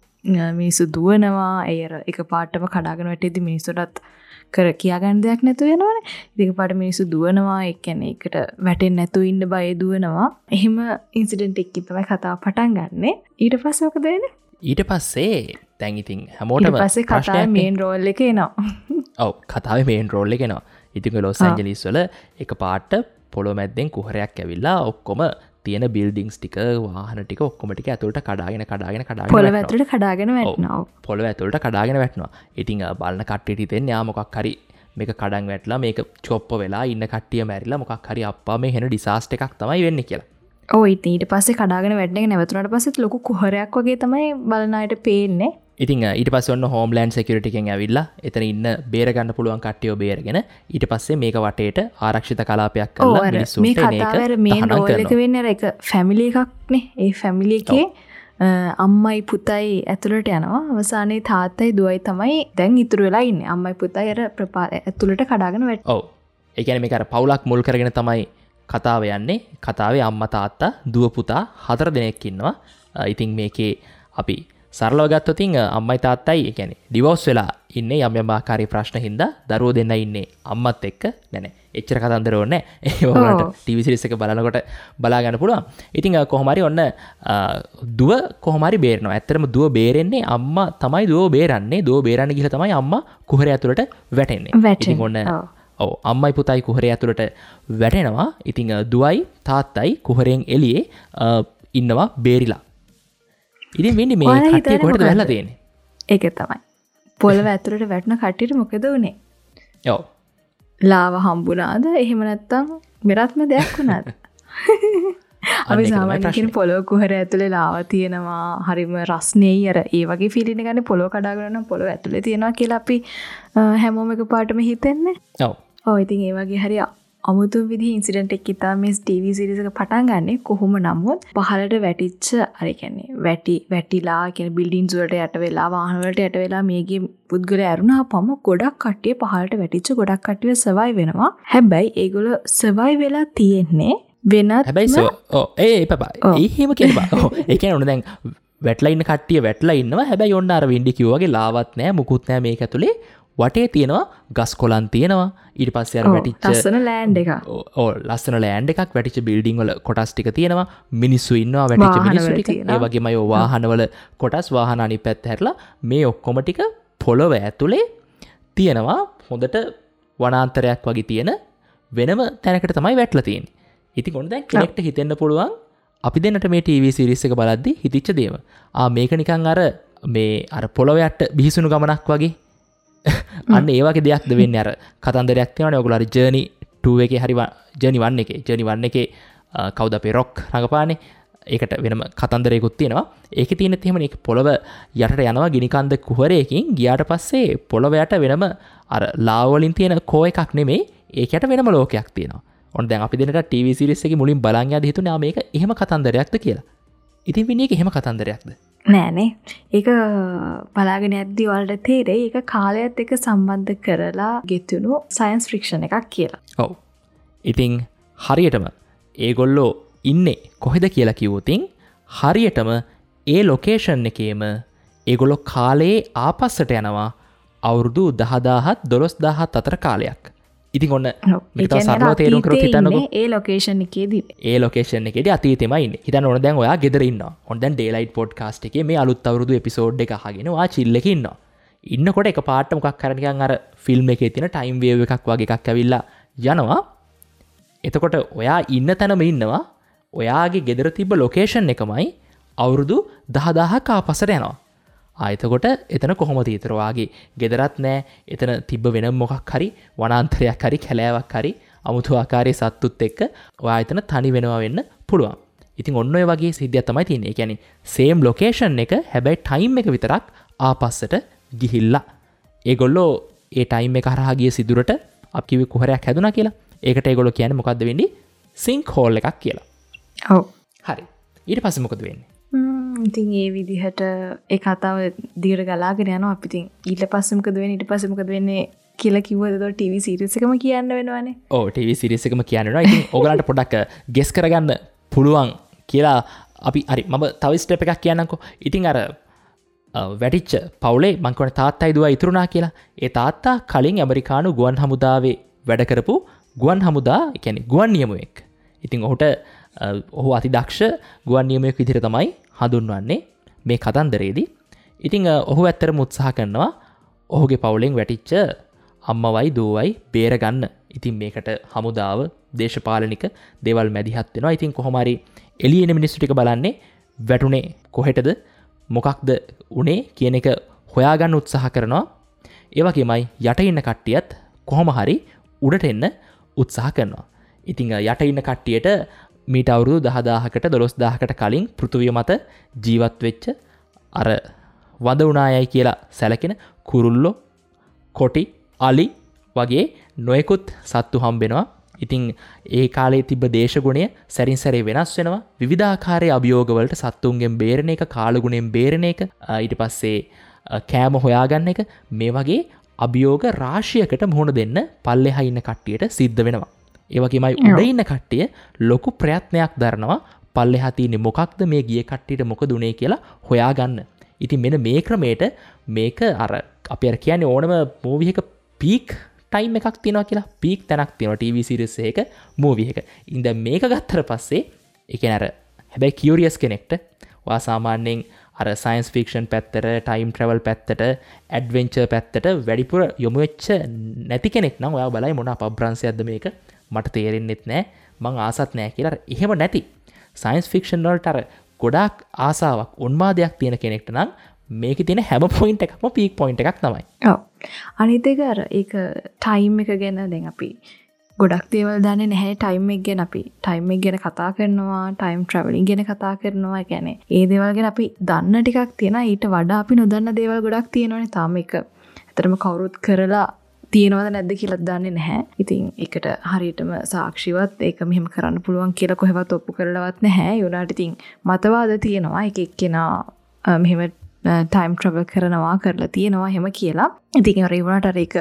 මිනිස්සු දුවනවා. ඒ අර එක පාටම කඩාගෙන වැටෙද්දි මිනිස්සුන්ටත් කර කියා ගන්න දෙයක් නැතුව යනවනේ. ඉතින් එකපාරට මිනිස්සු දුවනවා. ඒ කියන්නේ ඒකට වැටෙන්නේ නැතුව ඉන්න බය දුවනවා. එහෙම ඉන්සිඩන්ට් එකකින් තමයි කතාව පටන් ගන්නෙ. ඊට පස්සේ මොකද වෙන්නේ? ඊට පස්සේ දැන් ඉතින් හැමෝටම ඊට පස්සේ කතාවේ මේන් රෝල් එක එනවා. ඔව් කතාවේ මේන් රෝල් එක එනවා. ඉතින් ඔය ලොස් ඇන්ජලිස් වල එකපාරට පොළොව මැද්දෙන් කුහරයක් ඇවිල්ලා ඔක්කොම තියෙන බිල්ඩින්ග්ස් ටික වාහන ටික ඔක්කොම ටික ඇතුළට කඩාගෙන කඩාගෙන කඩාගෙන පොළොව ඇතුළට කඩාගෙන වැටෙනවා. පොළොව ඇතුළට කඩාගෙන වැටෙනවා. ඉතින් බලන කට්ටියට හිතෙන්නේ ආ මොකක් හරි මේක කඩන් වැටලා මේක චොප්ප වෙලා ඉන්න කට්ටිය මැරිලා මොකක් හරි අප්පා මේ හෙන ඩිසාස්ටර් එකක් තමයි වෙන්නේ කියලා. ඔව් ඉතින් ඊට පස්සේ කඩාගෙන වැටෙන එක නැවතුණාට පස්සෙත් ලොකු කුහරයක් වගේ තමයි බලන අයට පේන්නේ. ඉතින් ඊට පස්සේ ඔන්න හෝම්ලෑන්ඩ් සිකියුරිටි එකෙන් ඇවිල්ලා එතන ඉන්න බේර ගන්න පුළුවන් කට්ටියව බේරගෙන ඊට පස්සේ මේක වටේට ආරක්ෂිත කලාපයක් කරලා මිනිස්සුන්ට එන එක මේ කතාවේ අර මේන් රෝල් එක වෙන්නේ අර එක ෆැමිලි එකක් නේ. ඒ ෆැමිලි එකේ අම්මයි පුතයි ඇතුළට යනවා. අවසානයේ තාත්තයි දුවයි තමයි දැන් ඉතුරු වෙලා ඉන්නේ. අම්මයි පුතයි අර ඇතුළට කඩාගෙන වැටෙනවා. ඔව්. ඒ කියන්නේ මේක අර පවුලක් මුල් කරගෙන තමයි කතාව යන්නේ. කතාවේ අම්මා තාත්තා දුව පුතා 4 දෙනෙක් ඉන්නවා. ඉතින් මේකේ අපි සරලව ගත්තොත් අම්මයි තාත්තයි ඒ කියන්නේ ඩිවෝස් වෙලා ඉන්නේ යම් යම් ආකාරයේ ප්‍රශ්න හින්දා දරුවෝ දෙන්නා ඉන්නේ අම්මත් එක්ක. නෑ නෑ එච්චර කතන්දර ඕනේ නෑ. ඒ වුණාට ටීවී සීරීස් එක බලනකොට බලා ගන්න පුළුවන්. ඉතින් කොහොම හරි ඔන්න දුව කොහොම හරි බේරෙනවා. ඇත්තටම දුව බේරෙන්නේ අම්මා තමයි දුව බේරන්නේ. දුව බේරන්න ගිහලා තමයි අම්මා කුහරය ඇතුළට වැටෙන්නේ. ඉතින් ඔන්න ඔව් අම්මයි පුතයි කුහරය ඇතුළට වැටෙනවා. ඉතින් දුවයි තාත්තයි කුහරයෙන් එළියේ ඉන්නවා බේරිලා. ඉතින් වෙන්නේ මේ කට්ටිය කොහෙටද වැහලා තියෙන්නේ? ඒක තමයි. පොළව ඇතුළට වැටුණ කට්ටියට මොකද වුනේ? ඔව්. ලාව හම්බුණාද? එහෙම නැත්නම් වෙනත්ම දෙයක් වුණාද? අපි සාමාන්‍යයෙන් කියන පොළොව කුහර ඇතුලේ ලාව තියෙනවා, හරිම රස්නේයි, අර ඒ වගේ ෆීලිං එක ගන්න පොළොව කඩාගෙන නම් පොළොව ඇතුලේ තියෙනවා කියලා අපි හැමෝම එකපාරටම හිතෙන්නේ. ඔව්. ඔව්, ඉතින් ඒ වගේ හරි අමුතුම විදිහේ ඉන්සිඩන්ට් එකක් ඉතා මේ ටීවී සීරීස් එක පටන් ගන්නෙ. කොහොම නමුත් පහළට වැටිච්ච අර කියන්නේ වැටිලා කියන්නේ බිල්ඩින්ග්ස් වලට යට වෙලා වාහන වලට යට වෙලා මේකේ පුද්ගලයා ඇරුණාපම ගොඩක් කට්ටිය පහළට වැටිච්ච ගොඩක් කට්ටිය සර්වයිව් වෙනවා. හැබැයි ඒගොල්ලෝ සර්වයිව් වෙලා තියෙන්නේ වෙනත් හැබැයි ඔව් ඒ පපා එහෙම කියන්න බෑ. ඔව්, ඒ කියන්නේ ඔන්න දැන් වැටලා ඉන්න කට්ටිය වැටලා ඉන්නවා. හැබැයි ඔන්න අර වින්ඩි කිව්වා වගේ ලාවත් නෑ මුකුත් නෑ මේක ඇතුලේ. වටේ තියෙනවා ගස් කොළන් තියෙනවා. ඊට පස්සේ අර වැටිච්ච ලස්සන ලෑන්ඩ් එකක්. ඔව්, ලස්සන ලෑන්ඩ් එකක්, වැටිච්ච බිල්ඩින් වල කොටස් ටික තියෙනවා. මිනිස්සු ඉන්නවා, වැටිච්ච මිනිස්සු ටික. ඒ වගේමයි ඔය වාහනවල කොටස්, වාහන අනිත් පැත්ත හැරලා මේ ඔක්කොම ටික පොළොව ඇතුලේ තියෙනවා. හොඳට වනාන්තරයක් වගේ තියෙන වෙනම තැනකට තමයි වැටලා තියෙන්නේ. ඉතින් ඔන්න දැන් කෙනෙක්ට හිතෙන්න පුළුවන් අපි දෙන්නට මේ ටීවී සීරීස් එක බලද්දි හිතිච්ච දේම. ආ මේක නිකන් අර මේ අර පොළොව යට බිහිසුණු ගමනක් වගේ. අන්න ඒ වගේ දෙයක්ද වෙන්නේ. අර කතන්දරයක් තියෙනවනේ ඔයගොල්ලෝ හරි ජර්නි 2 එකේ හරි ජර්නි 1 එකේ ජර්නි 1 එකේ කවුද අපේ රොක් රඟපාන්නේ, ඒකට වෙනම කතන්දරයකුත් තියෙනවා. ඒකේ තියෙනෙත් එහෙමනේ, ඒක පොළව යටට යනවා ගිනි කන්ද කුහරයකින් ගියාට පස්සේ පොළව යට වෙනම අර ලාව වලින් තියෙන කෝ එකක් නෙමෙයි, ඒක යට වෙනම ලෝකයක් තියෙනවා. ඔන්න දැන් අපි දෙන්නට ටීවී සීරීස් එකේ මුලින් බලන් යද්දි හිතුනේ ආ මේක එහෙම කතන්දරයක්ද කියලා. ඉතින් විනී ඒක එහෙම කතන්දරයක්ද? නෑනේ. ඒක බලාගෙන යද්දි ඔයාලට තේරෙයි ඒක කාලයත් එක්ක සම්බන්ධ කරලා ගෙතුණු සයන්ස් ෆික්ෂන් එකක් කියලා. ඔව්. ඉතින් හරියටම ඒගොල්ලෝ ඉන්නේ කොහෙද කියලා කිව්වොතින් හරියටම ඒ ලොකේෂන් එකේම ඒගොල්ලෝ කාලයේ ආපස්සට යනවා අවුරුදු 10000ත් 12000ත් අතර කාලයක්. ඉතින් ඔන්න මේක තව සරලව තේරුම් කරොත් හිතන්නකෝ ඒ ලොකේෂන් එකේදී ඒ ලොකේෂන් එකේදී අතීතෙමයි ඉන්නේ. හිතන්න ඕන දැන් ඔයා ගෙදර ඉන්නවා. ඔන්න දැන් ඩේලයිට් පොඩ්කාස්ට් එකේ මේ අලුත් අවුරුදු එපිසෝඩ් එක අහගෙන ඔයා චිල් එකේ ඉන්නවා. ඉන්නකොට එක පාට මොකක් හරි නිකන් අර ෆිල්ම් එකේ තියෙන ටයිම් වේව් එකක් වගේ එකක් ඇවිල්ලා යනවා. එතකොට ඔයා ඉන්න තැනම ඉන්නවා. ඔයාගේ ගෙදර තිබ්බ ලොකේෂන් එකමයි අවුරුදු 10000ක් ආපස්සට යනවා. ආ එතකොට එතන කොහොමද ඊතර ඔයාගේ ගෙදරත් නෑ, එතන තිබ්බ වෙන මොකක් හරි වනාන්තරයක් හරි කැලෑවක් හරි අමුතු ආකාරයේ සත්තුත් එක්ක ඔයා එතන තනි වෙනවා වෙන්න පුළුවන්. ඉතින් ඔන්න ඔය වගේ සිද්ධියක් තමයි තියෙන්නේ. ඒ කියන්නේ සේම් ලොකේෂන් එක, හැබැයි ටයිම් එක විතරක් ආපස්සට ගිහිල්ලා. ඒගොල්ලෝ ඒ ටයිම් එක හරහා ගිය සිදුරට අපි කිව්වේ කුහරයක් හැදුනා කියලා. ඒකට ඒගොල්ලෝ කියන්නේ මොකද්ද වෙන්නේ? සින්ක් හෝල් එකක් කියලා. ඔව්. හරි. ඊට පස්සේ මොකද වෙන්නේ? ඉතින් ඒ විදිහට ඒ කතාව දිගට ගලාගෙන යනවා. අපි ඉතින් ඊට පස්සේ මොකද වෙන්නේ ඊට පස්සේ මොකද වෙන්නේ කියලා කිව්වද එතකොට ටීවී සීරීස් එකම කියන්න වෙනවනේ. ඔව්, ටීවී සීරීස් එකම කියන්න වෙනවා. ඉතින් ඕගලන්ට පොඩ්ඩක් ගෙස් කරගන්න පුළුවන් කියලා අපි හරි මම තව ස්ටෙප් එකක් කියන්නම්කෝ. ඉතින් අර වැටිච්ච පවුලේ මං කියන්නේ තාත්තයි දුවයි ඉතුරුනා කියලා. ඒ තාත්තා කලින් ඇමරිකානු ගුවන් හමුදාවේ වැඩ කරපු ගුවන් හමුදා, ඒ කියන්නේ ගුවන් නියමුවෙක්. ඉතින් ඔහුට ඔහු අතිදක්ෂ ගුවන් නියමුවෙක් විදිහට තමයි හඳුන්වන්නේ මේ කතන්දරේදී. ඉතින් ඔහු ඇත්තටම උත්සාහ කරනවා ඔහුගේ පවුලෙන් වැටිච්ච අම්මවයි දුවයි බේරගන්න. ඉතින් මේකට හමුදාව, දේශපාලනික දේවල් මැදිහත් වෙනවා. ඉතින් කොහොම හරි එළියේ එන මිනිස්සු ටික බලන්නේ වැටුනේ කොහෙටද, මොකක්ද උනේ කියන එක හොයාගන්න උත්සාහ කරනවා. ඒ වගේමයි යට ඉන්න කට්ටියත් කොහොම හරි උඩට එන්න උත්සාහ කරනවා. ඉතින් යට ඉන්න කට්ටියට මීට අවුරුදු 10000කට 12000කට කලින් පෘථුවිය මත ජීවත් වෙච්ච අර වඳ වුණායයි කියලා සැලකෙන කුරුල්ලෝ, කොටි, අලි වගේ නොයෙකුත් සත්තු හම්බෙනවා. ඉතින් ඒ කාලේ තිබ්බ දේශගුණය සැරින් සැරේ වෙනස් වෙනවා. විවිධාකාරයේ අභියෝග වලට සත්තුන්ගෙන් බේරෙන එක, කාලගුණයෙන් බේරෙන එක, ඊට පස්සේ කෑම හොයාගන්න එක, මේ වගේ අභියෝග රාශියකට මුහුණ දෙන්න පල්ලෙහා ඉන්න කට්ටියට සිද්ධ වෙනවා. ඒ වගේමයි උඩ ඉන්න කට්ටිය ලොකු ප්‍රයත්නයක් දරනවා පල්ලෙහා තියෙන්නේ මොකක්ද, මේ ගිය කට්ටියට මොකද උනේ කියලා හොයාගන්න. ඉතින් මෙන්න මේ ක්‍රමයට මේක අර අපි අර කියන්නේ ඕනම මූවි එක පීක් ටයිම් එකක් තියෙනවා කියලා, පීක් තැනක් තියෙනවා ටීවී සීරීස් එකක මූවි එක. ඉතින් දැන් මේක ගත්තට පස්සේ ඒ කියන්නේ අර හැබැයි කියුරියස් කෙනෙක්ට ඔයා සාමාන්‍යයෙන් අර සයන්ස් ෆික්ෂන් පැත්තට, ටයිම් ට්‍රැවල් පැත්තට, ඇඩ්වෙන්චර් පැත්තට වැඩිපුර යොමු වෙච්ච නැති කෙනෙක් නම් ඔයා බලයි මොන අපබ්‍රංශයක්ද මේක, මට තේරෙන්නෙත් නෑ, මං ආසත් නෑ කියලා. අර එහෙම නැති සයන්ස් ෆික්ෂන් වලට අර ගොඩාක් ආසාවක්, උන්මාදයක් තියෙන කෙනෙක්ට නම් මේකේ තියෙන හැම පොයින්ට් එකක්ම පීක් පොයින්ට් එකක් තමයි. ඔව්. අනිත් එක අර ඒක ටයිම් එක ගැන දැන් අපි ගොඩක් දේවල් දන්නේ නැහැ ටයිම් එක ගැන. අපි ටයිම් එක ගැන කතා කරනවා, ටයිම් ට්‍රැවලින් ගැන කතා කරනවා. ඒ කියන්නේ ඒ දේවල් ගැන අපි දන්න ටිකක් තියෙනවා. ඊට වඩා අපි නොදන්න දේවල් ගොඩක් තියෙනවනේ. තාම ඒක ඇත්තටම කවුරුත් කරලා තියෙනවද නැද්ද කියලා දන්නේ නැහැ. ඉතින් ඒකට හරියටම සාක්ෂිවත් ඒක මෙහෙම කරන්න පුළුවන් කියලා කොහෙවත් ඔප්පු කරලවත් නැහැ. ඒ වුණාට ඉතින් මතවාද තියෙනවා. එක එක්කෙනා මෙහෙම ටයිම් ට්‍රැවල් කරනවා කරලා තියෙනවා එහෙම කියලා. ඉතින් අර ඒ වුණාට අර ඒක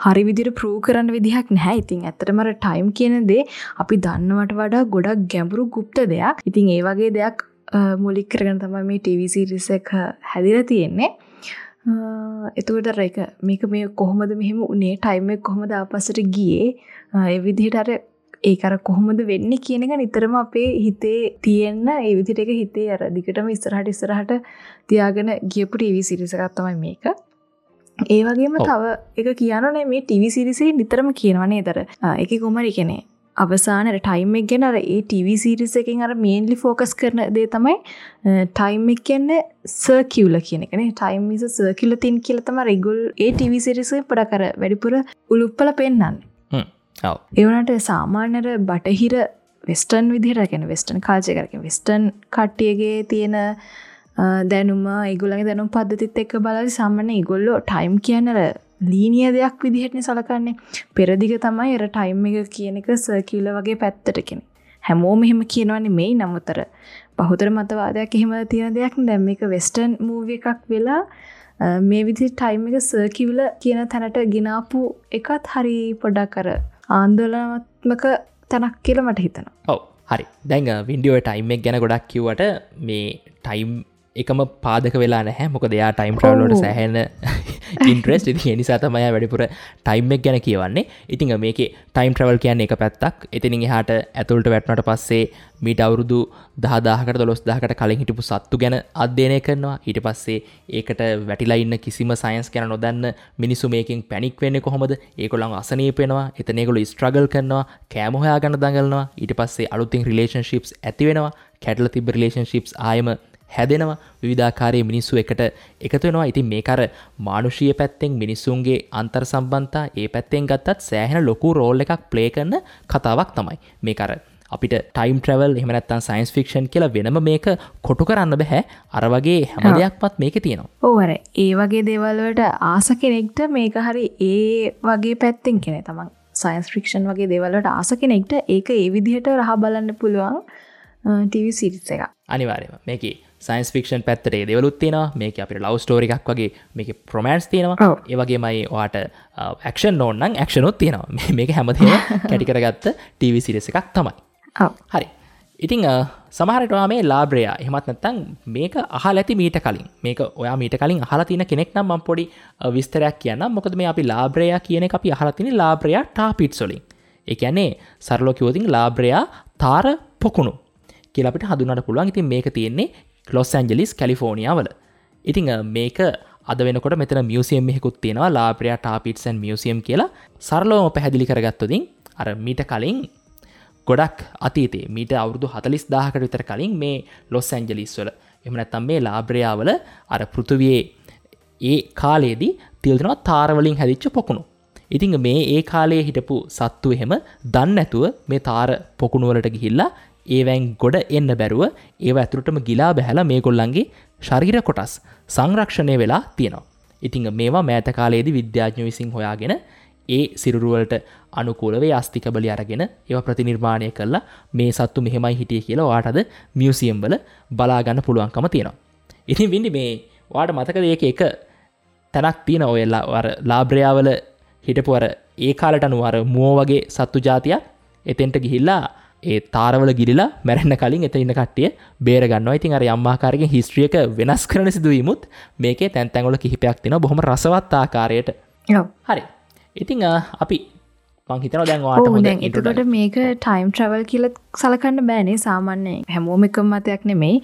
හරි විදිහට ප්‍රූව් කරන්න විදිහක් නැහැ. ඉතින් ඇත්තටම අර ටයිම් කියන දේ අපි දන්නවට වඩා ගොඩක් ගැඹුරු ගුප්ත දෙයක්. ඉතින් ඒ වගේ දෙයක් මූලික කරගෙන තමයි මේ ටීවී සීරීස් එක හැදිලා තියෙන්නේ. එතකොට අර ඒක මේක මේ කොහොමද මෙහෙම උනේ, ටයිම් එක කොහොමද ආපස්සට ගියේ, ඒ විදිහට අර ඒක අර කොහොමද වෙන්නේ කියන එක නිතරම අපේ හිතේ තියෙන, ඒ විදිහට ඒක හිතේ අර දිගටම ඉස්සරහට ඉස්සරහට තියාගෙන ගියපු ටීවී සීරීස් එකක් තමයි මේක. ඒ වගේම තව එක කියනෝනේ මේ ටීවී සීරීස් එකේ නිතරම කියනවා නේද අර ඒකේ කොහොම හරි කියන්නේ අවසාන අර ටයිම් එක ගැන අර ඒ ටීවී සීරීස් එකෙන් අර මේන්ලි ෆෝකස් කරන දේ තමයි ටයිම් එක කියන්නේ සර්කියුලර් කියන එක නේ. Time is a circular thing කියලා තමයි රෙගුලර් ඒ ටීවී සීරීස් එකේ පොඩක් අර වැඩිපුර උලුප්පල පෙන්නන්නේ. ඔව්. ඒ වුණාට සාමාන්‍ය අර බටහිර වෙස්ටර්න් විදිහට, කියන්නේ වෙස්ටර්න් කල්චර් එක, කියන්නේ වෙස්ටර්න් කට්ටියගේ තියෙන දැනුම, ඒගොල්ලන්ගේ දැනුම් පද්ධතිත් එක්ක බලද්දි සාමාන්‍ය ඒගොල්ලෝ ටයිම් කියන්නේ අර ලීනියර් දෙයක් විදිහටනේ සලකන්නේ. පෙරදිග තමයි අර ටයිම් එක කියන එක සර්කියුලර් වගේ පැත්තට කියන්නේ. හැමෝම එහෙම කියනවා නෙමෙයි, නමුත් අර බහුතර මතවාදයක් එහෙම තියෙන දෙයක් නේ. දැන් මේක වෙස්ටර්න් මූවි එකක් වෙලා මේ විදිහට ටයිම් එක සර්කියුලර් කියන තැනට ගෙනාපු එකත් හරි පොඩක් අර ආందోලනාත්මක තැනක් කියලා මට හිතෙනවා. ඔව් හරි. දැන් වින්ඩි ඔය ටයිම් එක ගැන ගොඩක් කිව්වට මේ ටයිම් එකම පාදක වෙලා නැහැ. මොකද එයා ටයිම් ට්‍රැවල් වලට සෑහෙන ඉන්ට්‍රෙස්ට්. ඉතින් ඒ නිසා තමයි එයා වැඩිපුර ටයිම් එක ගැන කියවන්නේ. ඉතින් මේකේ ටයිම් ට්‍රැවල් කියන්නේ එක පැත්තක්. එතනින් එහාට ඇතුළට වැටුණාට පස්සේ මීට අවුරුදු 10000කට 12000කට කලින් හිටපු සත්තු ගැන අධ්‍යයනය කරනවා. ඊට පස්සේ ඒකට වැටිලා ඉන්න කිසිම සයන්ස් ගැන නොදන්න මිනිස්සු මේකෙන් පැනික් වෙන්නේ කොහොමද? ඒගොල්ලන් අසනීප වෙනවා. එතන ඒගොල්ලෝ ස්ට්‍රගල් කරනවා. කෑම හොයාගන්න දඟලනවා. ඊට පස්සේ අලුතින් රිලේෂන්ෂිප්ස් ඇති වෙනවා. කැඩලා තිබ්බ රිලේෂන්ෂිප්ස් ආයෙම හැදෙනවා. විවිධාකාරයේ මිනිස්සු එකට එකතු වෙනවා. ඉතින් මේක අර මානුෂීය පැත්තෙන් මිනිස්සුන්ගේ අන්තර් සම්බන්ධතා ඒ පැත්තෙන් ගත්තත් සෑහෙන ලොකු රෝල් එකක් ප්ලේ කරන කතාවක් තමයි. මේක අර අපිට ටයිම් ට්‍රැවල් එහෙම නැත්නම් සයන්ස් ෆික්ෂන් කියලා වෙනම මේක කොටු කරන්න බෑ. අර වගේ හැම දෙයක්මත් මේකේ තියෙනවා. ඔව් අර ඒ වගේ දේවල් වලට ආස කෙනෙක්ට මේක හරි ඒ වගේ පැත්තෙන් කියන්නේ තමන් සයන්ස් ෆික්ෂන් වගේ දේවල් වලට ආස කෙනෙක්ට ඒක ඒ විදිහට රහ බලන්න පුළුවන් ටීවී සීරීස් එකක්. අනිවාර්යයෙන්ම මේකේ සයන්ස් ෆික්ෂන් පැත්තට ඒ දේවලුත් තියෙනවා. මේකේ අපිට ලව් ස්ටෝරි එකක් වගේ මේකේ රොමෑන්ස් තියෙනවා. ඒ වගේමයි ඔයාට ඇක්ෂන් ඕන නම් ඇක්ෂන් උත් තියෙනවා. මේක හැමදේම කැටි කරගත්ත ටීවී සීරීස් එකක් තමයි. ඔව්. හරි. ඉතින් සමහර විට ඔයා මේ ලාබ්‍රයා එහෙමත් නැත්නම් මේක අහලා ඇති මීට කලින්. මේක ඔයා මීට කලින් අහලා තියෙන කෙනෙක් නම් මම පොඩි විස්තරයක් කියන්නම්. මොකද මේ අපි ලාබ්‍රයා කියන එක අපි අහලා තියෙන්නේ ලාබ්‍රයා ටාර් පිට්ස් වලින්. ඒ කියන්නේ සරලව කිව්වොත් ලාබ්‍රයා තාර පොකුණු කියලා අපිට හඳුන්වන්න පුළුවන්. ඉතින් මේක තියෙන්නේ ලොස් ඇන්ජලිස් කැලිෆෝනියා වල. ඉතින් මේක අද වෙනකොට මෙතන මියුසියම් එකකුත් තියෙනවා, ලාබ්‍රයා ටාර් පිට්ස් ඇන්ඩ් මියුසියම් කියලා. සරලවම පැහැදිලි කරගත්තොත් අර මීට කලින් ගොඩක් අතීතයේ මීට අවුරුදු 40000කට විතර කලින් මේ ලොස් ඇන්ජලිස් වල එහෙම නැත්නම් මේ ලාබ්‍රයා වල අර පෘථුවියේ ඒ කාලේදී තියලා දෙනවා තාර වලින් හැදිච්ච පොකුණු. ඉතින් මේ ඒ කාලයේ හිටපු සත්තු එහෙම දන්නේ නැතුව මේ තාර පොකුණු වලට ගිහිල්ලා ඒවෙන් ගොඩ එන්න බැරුව ඒව ඇතුළටම ගිලා බැහැලා මේගොල්ලන්ගේ ශරීර කොටස් සංරක්ෂණය වෙලා තියෙනවා. ඉතින් මේවා මෑත කාලයේදී විද්‍යාඥයෝ විසින් හොයාගෙන ඒ සිරුරු වලට අනුකූලව ඒ අස්ථි කබලි අරගෙන ඒවා ප්‍රතිනිර්මාණය කරලා මේ සත්තු මෙහෙමයි හිටියේ කියලා ඔයාට අද මියුසියම් වල බලා ගන්න පුළුවන්කම තියෙනවා. ඉතින් වින්ඩි මේ ඔයාට මතකද ඒකේ එක තැනක් තියෙන ඔය අර ලාබ්‍රයා වල හිටපු අර ඒ කාලට අනුව අර මුවෝ වගේ සත්තු ජාතියක් එතෙන්ට ගිහිල්ලා ඒ තාරවල ගිලිලා මැරෙන්න කලින් එතන ඉන්න කට්ටිය බේර ගන්නවා. ඉතින් අර යම් ආකාරයකින් හිස්ටරි එක වෙනස් කරන සිදුවීමුත් මේකේ තැන් තැන් වල කිහිපයක් තියෙනවා බොහොම රසවත් ආකාරයට. ඔව්. හරි. ඉතින් අපි මං හිතනවා දැන් ඔයාට හොඳ දැන් එතකොට මේක ටයිම් ට්‍රැවල් කියලා සලකන්න බෑනේ. සාමාන්‍යයෙන් හැමෝම එකම මතයක් නෙමෙයි.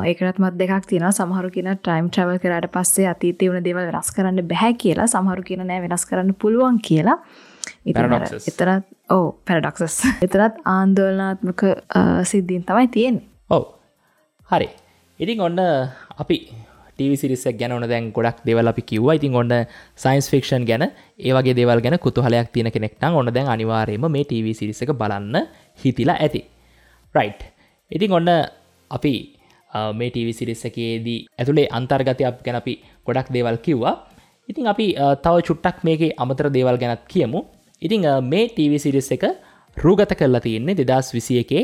ඒකටත් මත දෙකක් තියෙනවා. සමහරු කියන ටයිම් ට්‍රැවල් කරාට පස්සේ අතීතේ වුණ දේවල් වෙනස් කරන්න බෑ කියලා. සමහරු කියන නෑ වෙනස් කරන්න පුළුවන් කියලා. ඉතින් එතරම් ඔව් පැරඩොක්සස්. එතරම් ආందోලනාත්මක සිද්ධීන් තමයි තියෙන්නේ. ඔව්. හරි. ඉතින් ඔන්න අපි TV series එක ගැන ඔන්න දැන් ගොඩක් දේවල් අපි කිව්වා. ඉතින් ඔන්න සයන්ස් ෆික්ෂන් ගැන ඒ වගේ දේවල් ගැන කුතුහලයක් තියෙන කෙනෙක් නම් ඔන්න දැන් අනිවාර්යයෙන්ම මේ TV series එක බලන්න හිතිලා ඇති. රයිට්. ඉතින් ඔන්න අපි මේ TV series එකේදී ඇතුලේ අන්තර්ගතයක් ගැන අපි ගොඩක් දේවල් කිව්වා. ඉතින් අපි තව චුට්ටක් මේකේ අමතර දේවල් ගැනත් කියමු. ඉතින් මේ TV series එක රූගත කරලා තියෙන්නේ 2021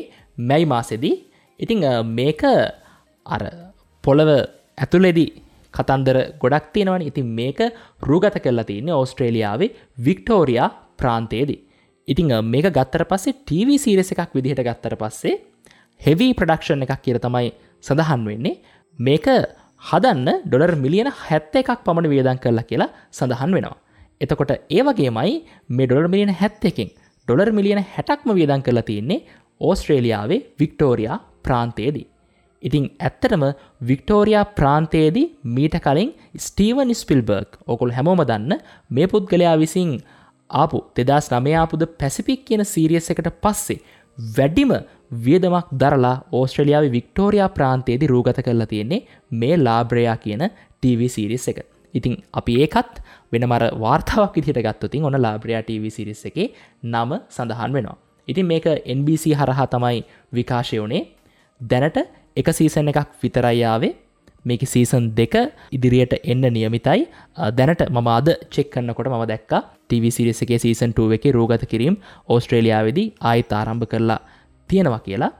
මැයි මාසෙදී. ඉතින් මේක අර පොළව ඇතුලේදී කතන්දර ගොඩක් තියෙනවනේ. ඉතින් මේක රූගත කරලා තියෙන්නේ ඕස්ට්‍රේලියාවේ වික්ටෝරියා ප්‍රාන්තයේදී. ඉතින් මේක ගත්තට පස්සේ TV series එකක් විදිහට ගත්තට පස්සේ හෙවි ප්‍රොඩක්ෂන් එකක් කියලා තමයි සඳහන් වෙන්නේ. මේක හදන්න ඩොලර් මිලියන 71ක් පමණ වියදම් කරලා කියලා සඳහන් වෙනවා. එතකොට ඒ වගේමයි මේ ඩොලර් මිලියන 71කින් ඩොලර් මිලියන 60ක්ම වියදම් කරලා තියෙන්නේ ඕස්ට්‍රේලියාවේ වික්ටෝරියා ප්‍රාන්තයේදී. ඉතින් ඇත්තටම වික්ටෝරියා ප්‍රාන්තයේදී මීට කලින් ස්ටීවන් ස්පිල්බර්ග් ඔයගොල්ලෝ හැමෝම දන්න මේ පුද්ගලයා විසින් ආපු 2009 ආපු ද පැසිෆික් කියන සීරීස් එකට පස්සේ වැඩිම වියදමක් දරලා ඕස්ට්‍රේලියාවේ වික්ටෝරියා ප්‍රාන්තයේදී රූගත කරලා තියෙන්නේ මේ ලාබ්‍රයා කියන TV series එක. ඉතින් අපි ඒකත් වෙනම අර වාර්තාවක් විදිහට ගත්තොත් ඔන්න ලාබ්‍රයා TV series එකේ නම සඳහන් වෙනවා. ඉතින් මේක NBC හරහා තමයි විකාශය වුණේ. දැනට එක සීසන් එකක් විතරයි ආවේ. මේකේ සීසන් 2 ඉදිරියට එන්න නියමිතයි. දැනට මම අද චෙක් කරනකොට මම දැක්කා TV series එකේ සීසන් 2 එකේ රූගත කිරීම ඕස්ට්‍රේලියාවේදී ආයෙත් ආරම්භ කරලා තියෙනවා කියලා.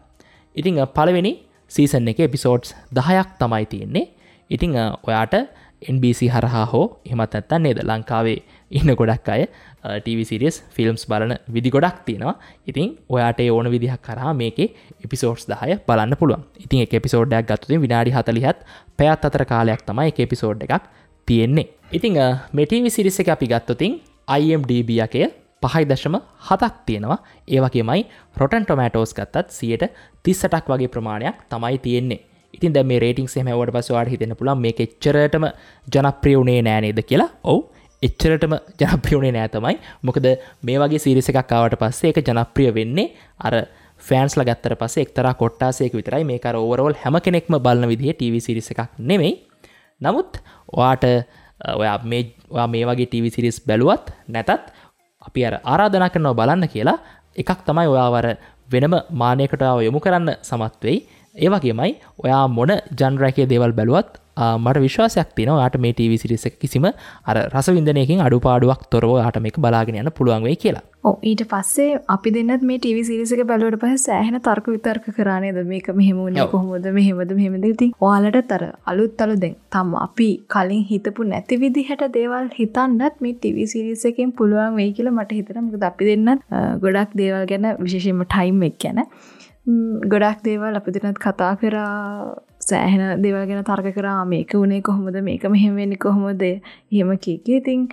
ඉතින් පළවෙනි සීසන් එකේ එපිසෝඩ්ස් 10ක් තමයි තියෙන්නේ. ඉතින් ඔයාට NBC හරහා හෝ එහෙමත් නැත්නම් නේද ලංකාවේ ඉන්න ගොඩක් අය TV series films බලන විදි ගොඩක් තියෙනවා. ඉතින් ඔයාට ඒ ඕන විදිහක් හරහා මේකේ එපිසෝඩ්ස් 10 බලන්න පුළුවන්. ඉතින් එක එපිසෝඩ් එකක් ගත්තොත් විනාඩි 40ත් පැයත් අතර කාලයක් තමයි එක එපිසෝඩ් එකක් තියෙන්නේ. ඉතින් මේ TV series එක අපි ගත්තොත් IMDb එකේ 5.7ක් තියෙනවා. ඒ වගේමයි Rotten Tomatoes ගත්තත් 38ක් වගේ ප්‍රමාණයක් තමයි තියෙන්නේ. ඉතින් දැන් මේ රේටින්ග්ස් එහෙම ඇහුවට පස්සේ ඔයාලට හිතෙන්න පුළුවන් මේක එච්චරටම ජනප්‍රිය වුණේ නෑ නේද කියලා. ඔව්, එච්චරටම ජනප්‍රිය වුණේ නෑ තමයි. මොකද මේ වගේ සීරීස් එකක් ආවට පස්සේ ඒක ජනප්‍රිය වෙන්නේ අර ෆෑන්ස්ලා ගත්තට පස්සේ එක්තරා කොට්ටාසයක විතරයි. මේක අර ඕවරෝල් හැම කෙනෙක්ම බලන විදිහේ TV series එකක් නෙමෙයි. නමුත් ඔයාට ඔයා මේ වගේ TV series බැලුවත් නැතත් අපි අර ආරාධනා කරනවා බලන්න කියලා. එකක් තමයි ඔයාව අර වෙනම මානයකට ඔයාව යොමු කරන්න සමත් වෙයි. ඒ වගේමයි ඔයා මොන ජන්ර් එකේ දේවල් බැලුවත් මට විශ්වාසයක් තියෙනවා ඔයාට මේ TV series එක කිසිම අර රසවින්දනයකින් අඩුපාඩුවක් තොරව ඔයාට මේක බලාගෙන යන්න පුළුවන් වෙයි කියලා. ඔව්, ඊට පස්සේ අපි දෙන්නත් මේ TV series එක බැලුවට පස්සේ සෑහෙන තර්ක විතර්ක කරා නේද? මේක මෙහෙම වුණේ කොහොමද, මෙහෙමද මෙහෙමද. ඉතින් ඔයාලටත් අර අලුත් අලුත් දැන් තම අපි කලින් හිතපු නැති විදිහට දේවල් හිතන්නත් මේ TV series එකෙන් පුළුවන් වෙයි කියලා මට හිතෙනවා. මොකද අපි දෙන්නත් ගොඩක් දේවල් ගැන විශේෂයෙන්ම ටයිම් එක ගැන ගොඩක් දේවල් අපි දෙන්නත් කතා කරා, සෑහෙන දේවල් ගැන තර්ක කරා. මේක වුණේ කොහොමද, මේක මෙහෙම වෙන්නේ කොහොමද, එහෙම කී කී. ඉතින්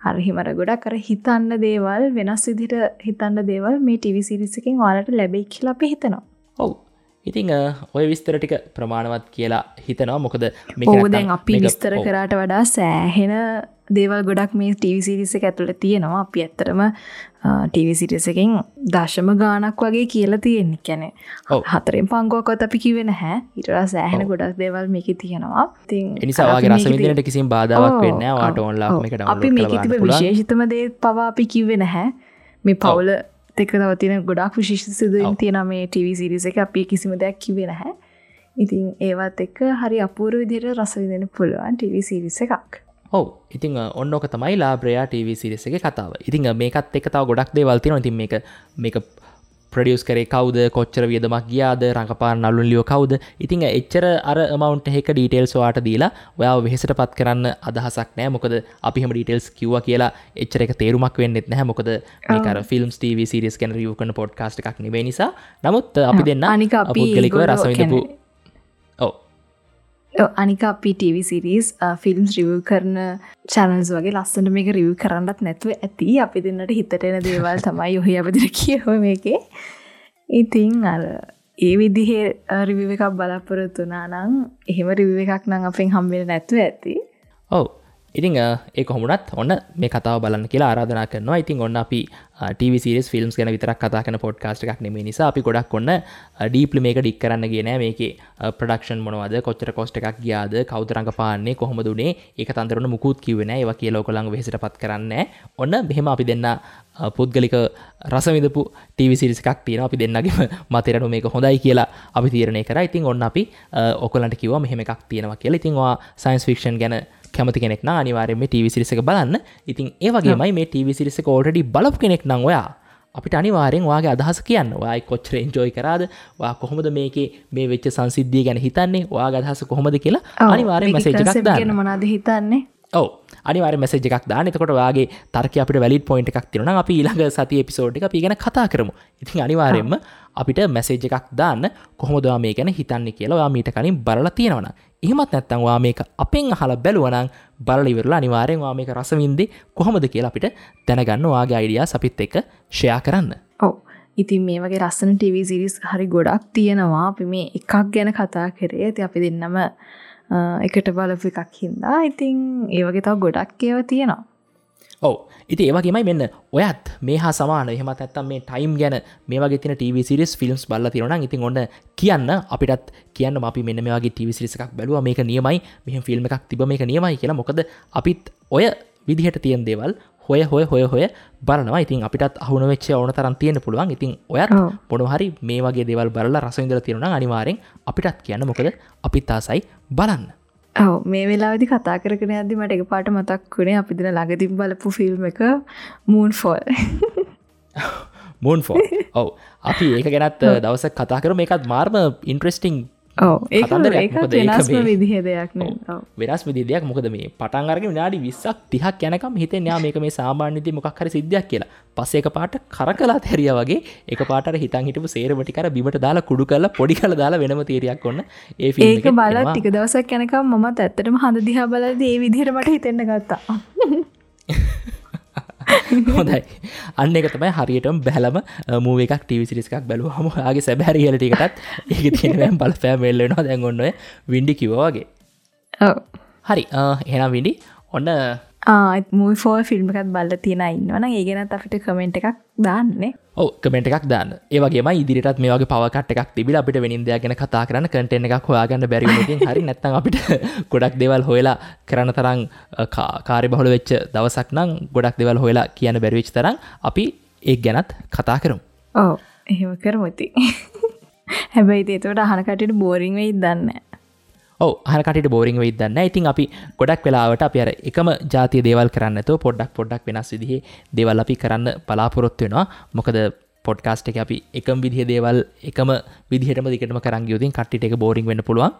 අර හිම අර ගොඩක් අර හිතන්න දේවල් වෙනස් විදිහට හිතන්න දේවල් මේ TV series එකෙන් ඔයාලට ලැබෙයි කියලා අපි හිතනවා. ඔව්. ඉතින් ඔය විස්තර ටික ප්‍රමාණවත් කියලා හිතනවා. මොකද මේක නැත්තම් දැන් අපි විස්තර කරාට වඩා සෑහෙන දේවල් ගොඩක් මේ TV series එක ඇතුළේ තියෙනවා. අපි ඇත්තටම TV series එකෙන් දශම ගාණක් වගේ කියලා තියෙන්නේ. කියන්නේ හතරෙන් පංගුවක්වත් අපි කිව්වේ නැහැ. ඊට වඩා සෑහෙන ගොඩක් දේවල් මේකේ තියෙනවා. ඉතින් ඒ නිසා ඔයාගේ රස විඳින්නට කිසිම බාධාවක් වෙන්නේ නැහැ. ඔයාට ඕන්ලා මේක ඩවුන්ලෝඩ් අපි කරලා මේකේ බලන්න තිබ්බ පුළුවන්. විශේෂිතම දේ පවා අපි කිව්වේ නැහැ. මේ පවුල එක්ක තව තියෙන ගොඩක් විශේෂ සිදුවීම් තියෙනවා මේ TV series එකේ. අපි කිසිම දෙයක් කිව්වේ නැහැ. ඉතින් ඒවත් එක්ක හරි අපූර්ව විදිහට රස විඳින්න පුළුවන් TV series එකක්. ඔව්. ඉතින් ඔන්න ඔක තමයි ලාබ්‍රයා TV series එකේ කතාව. ඉතින් මේකත් එක්ක තව ගොඩක් දේවල් තියෙනවා. ඉතින් මේක ප්‍රොඩියුස් කරේ කවුද, කොච්චර වියදමක් ගියාද, රඟපාන නළුන් ලියෝ කවුද. ඉතින් එච්චර අර amount එකක ඩීටේල්ස් ඔයාට දීලා ඔයාව වෙහෙසටපත් කරන්න අදහසක් නෑ. මොකද අපි එහෙම ඩීටේල්ස් කිව්වා කියලා එච්චර එක තේරුමක් වෙන්නෙත් නැහැ. මොකද මේක අර ෆිල්ම්ස් TV series ගැන රිවිව් කරන පොඩ්කාස්ට් එකක් නෙවෙයි නිසා. නමුත් අපි දෙන්න පුද්ගලිකව රස විඳපු අනික අපි TV series films review කරන චැනල්ස් වගේ ලස්සනට මේක රිවිව් කරන්නත් නැතුව ඇති. අපි දෙන්නට හිතට එන දේවල් තමයි ඔහි අපි දෙන්න කියව මේකේ. ඉතින් අර ඒ විදිහේ රිවිව් එකක් බලාපොරොත්තු වුණා නම් එහෙම රිවිව් එකක් නම් අපෙන් හම්බෙන්නේ නැතුව ඇති. ඔව්. ඉතින් ඒ කොහොම වුණත් ඔන්න මේ කතාව බලන්න කියලා ආරාධනා කරනවා. ඉතින් ඔන්න අපි TV series films ගැන විතරක් කතා කරන පොඩ්කාස්ට් එකක් නෙමෙයි නිසා අපි ගොඩක් ඔන්න ඩීප්ලි මේක ඩික් කරන්න ගියේ නෑ. මේකේ ප්‍රොඩක්ෂන් මොනවද, කොච්චර කොස්ට් එකක් ගියාද, කවුද රඟපාන්නේ, කොහොමද උනේ, ඒක තන්දරන මුකුත් කිව්වේ නෑ. ඒවා කියලා ඔයගොල්ලන්ව වෙහෙසටපත් කරන්නේ නෑ. ඔන්න මෙහෙම අපි දෙන්න පුද්ගලික රස විඳපු TV series එකක් තියෙනවා. අපි දෙන්නගේම මතයට අනුව මේක හොඳයි කියලා අපි තීරණය කරා. ඉතින් ඔන්න අපි ඔයගොල්ලන්ට කිව්වා මෙහෙම එකක් තියෙනවා කියලා. ඉතින් ඔයා සයන්ස් ෆික්ෂන් ගැන කැමති කෙනෙක් නම් අනිවාර්යයෙන් මේ TV series එක බලන්න. ඉතින් ඒ වගේමයි මේ TV series එක ඔල්රෙඩි බලපු කෙනෙක් නම් ඔයා අපිට අනිවාර්යෙන් ඔයාගේ අදහස කියන්න. ඔයා කොච්චර එන්ජොයි කරාද? ඔයා කොහොමද මේකේ මේ වෙච්ච සංසිද්ධිය ගැන හිතන්නේ? ඔයාගේ අදහස කොහොමද කියලා අනිවාර්යෙන් මැසේජ් එකක් දාන්න. ගැන මොනවද හිතන්නේ? ඔව්, අනිවාර්යෙන් මැසේජ් එකක් දාන්න. එතකොට ඔයාගේ තර්කය අපිට වැලිඩ් පොයින්ට් එකක් තියෙනවා නම් අපි ඊළඟ සතියේ එපිසෝඩ් එක අපි ගැන කතා කරමු. ඉතින් අනිවාර්යෙන්ම අපිට මැසේජ් එකක් දාන්න කොහොමද ඔයා මේ ගැන හිතන්නේ කියලා ඔයා මීට කලින් බලලා තියෙනවා නම්. එහෙමත් නැත්නම් ඔයා මේක අපෙන් අහලා බැලුවා නම් බලලා ඉවරලා අනිවාර්යෙන් ඔයා මේක රස විඳි කොහොමද කියලා අපිට දැනගන්න ඔයාගේ අයිඩියාස් අපිත් එක්ක ෂෙයා කරන්න. ඔව්. ඉතින් මේ වගේ ලස්සන TV series හරි ගොඩක් තියෙනවා. අපි මේ එකක් ගැන කතා කරේ. ඉතින් අපි දෙන්නම එකට බලපු එකක් හින්දා ඉතින් ඒ වගේ තව ගොඩක් ඒවා තියෙනවා. ඔව්. ඉතින් ඒ වගේමයි මෙන්න ඔයත් මේ හා සමාන එහෙමත් නැත්නම් මේ ටයිම් ගැන මේ වගේ තියෙන TV series films බලලා තියෙනවා නම් ඉතින් ඔන්න කියන්න අපිටත් කියන්න අපි මෙන්න මේ වගේ TV series එකක් බැලුවා මේක නියමයි, මෙහෙම ෆිල්ම් එකක් තිබ්බ මේක නියමයි කියලා. මොකද අපිත් ඔය විදිහට තියෙන දේවල් හොය හොය හොය හොය බලනවා. ඉතින් අපිටත් අහු නොවෙච්ච ඕන තරම් තියෙන්න පුළුවන්. ඉතින් ඔයත් මොනවා හරි මේ වගේ දේවල් බලලා රස විඳලා තියෙනවා නම් අනිවාර්යෙන් අපිටත් කියන්න. මොකද අපිත් ආසයි බලන්න. ඔව්, මේ වෙලාවේදී කතා කරගෙන යද්දි මට එකපාරට මතක් වුණේ අපි දින ළඟදීම බලපු ෆිල්ම් එක මූන්ෆෝල්. මූන්ෆෝල්. ඔව්, අපි ඒක ගැනත් දවසක් කතා කරමු. මේකත් මාර්ම ඉන්ට්‍රෙස්ටිං. ඔව්, ඒක වෙනස්ම විදිහේ දෙයක් නේ. ඔව්, වෙනස් විදිහේ දෙයක්. මොකද මේ පටන් අරගෙන විනාඩි 20ක් 30ක් යනකම් හිතෙන්නේ ආ මේක මේ සාමාන්‍ය විදිහේ මොකක් හරි සිද්ධියක් කියලා. පස්සේ එකපාරට කරකලා හැරියා වගේ එකපාරට අර හිතන් හිටපු සේරම ටික අර බිමට දාලා කුඩු කරලා පොඩි කරලා දාලා වෙනම තීරියක් ඔන්න ඒ ෆිල්ම් එකේ. ඒක බලලා ටික දවසක් යනකම් මමත් ඇත්තටම හඳ දිහා බලද්දී ඒ විදිහට මට හිතෙන්න ගත්තා. හොඳයි. අන්න ඒක තමයි හරියටම බැලම මූවි එකක් ටීවී සීරීස් එකක් බැලුවහම ඔයාගේ සැබෑ රියැලිටි එකටත් ඒකේ තියෙන වෑම් බලපෑම එල්ල වෙනවා. දැන් ඔන්න ඔය වින්ඩි කිව්වා වගේ. ඔව්. හරි. එහෙනම් වින්ඩි ඔන්න මූවි ෆෝල් ෆිල්ම් එකක් බලලා තියෙන අය ඉන්නවා නම් ඒ ගැනත් අපිට කමෙන්ට් එකක් දාන්න. ඔව්, කමෙන්ට් එකක් දාන්න. ඒ වගේමයි ඉදිරියටත් මේ වගේ පවර් කට් එකක් තිබිලා අපිට වෙනින් දෙයක් ගැන කතා කරන්න කන්ටෙන්ට් එකක් හොයාගන්න බැරි වුණොත් ඉතින් හරි, නැත්නම් අපිට ගොඩක් දේවල් හොයලා කරන්න තරම් කාර්යබහුල වෙච්ච දවසක් නම් ගොඩක් දේවල් හොයලා කියන්න බැරි වෙච්ච තරම් අපි ඒක ගැනත් කතා කරමු. ඔව්, එහෙම කරමු ඉතින්. හැබැයි ඉතින් ඒකට අහන කට්ටියට බෝරින් වෙයිද දන්නේ නැහැ. ඔව්, අහන කට්ටියට බෝරින් වෙයිද දන්නේ නැහැ. ඉතින් අපි ගොඩක් වෙලාවට අපි අර එකම ජාතිය දේවල් කරන්නේ නැතුව පොඩ්ඩක් පොඩ්ඩක් වෙනස් විදිහේ දේවල් අපි කරන්න බලාපොරොත්තු වෙනවා. මොකද පොඩ්කාස්ට් එකේ අපි එකම විදිහේ දේවල් එකම විදිහටම දිගටම කරන් ගියොත් ඉතින් කට්ටියට ඒක බෝරින් වෙන්න පුළුවන්.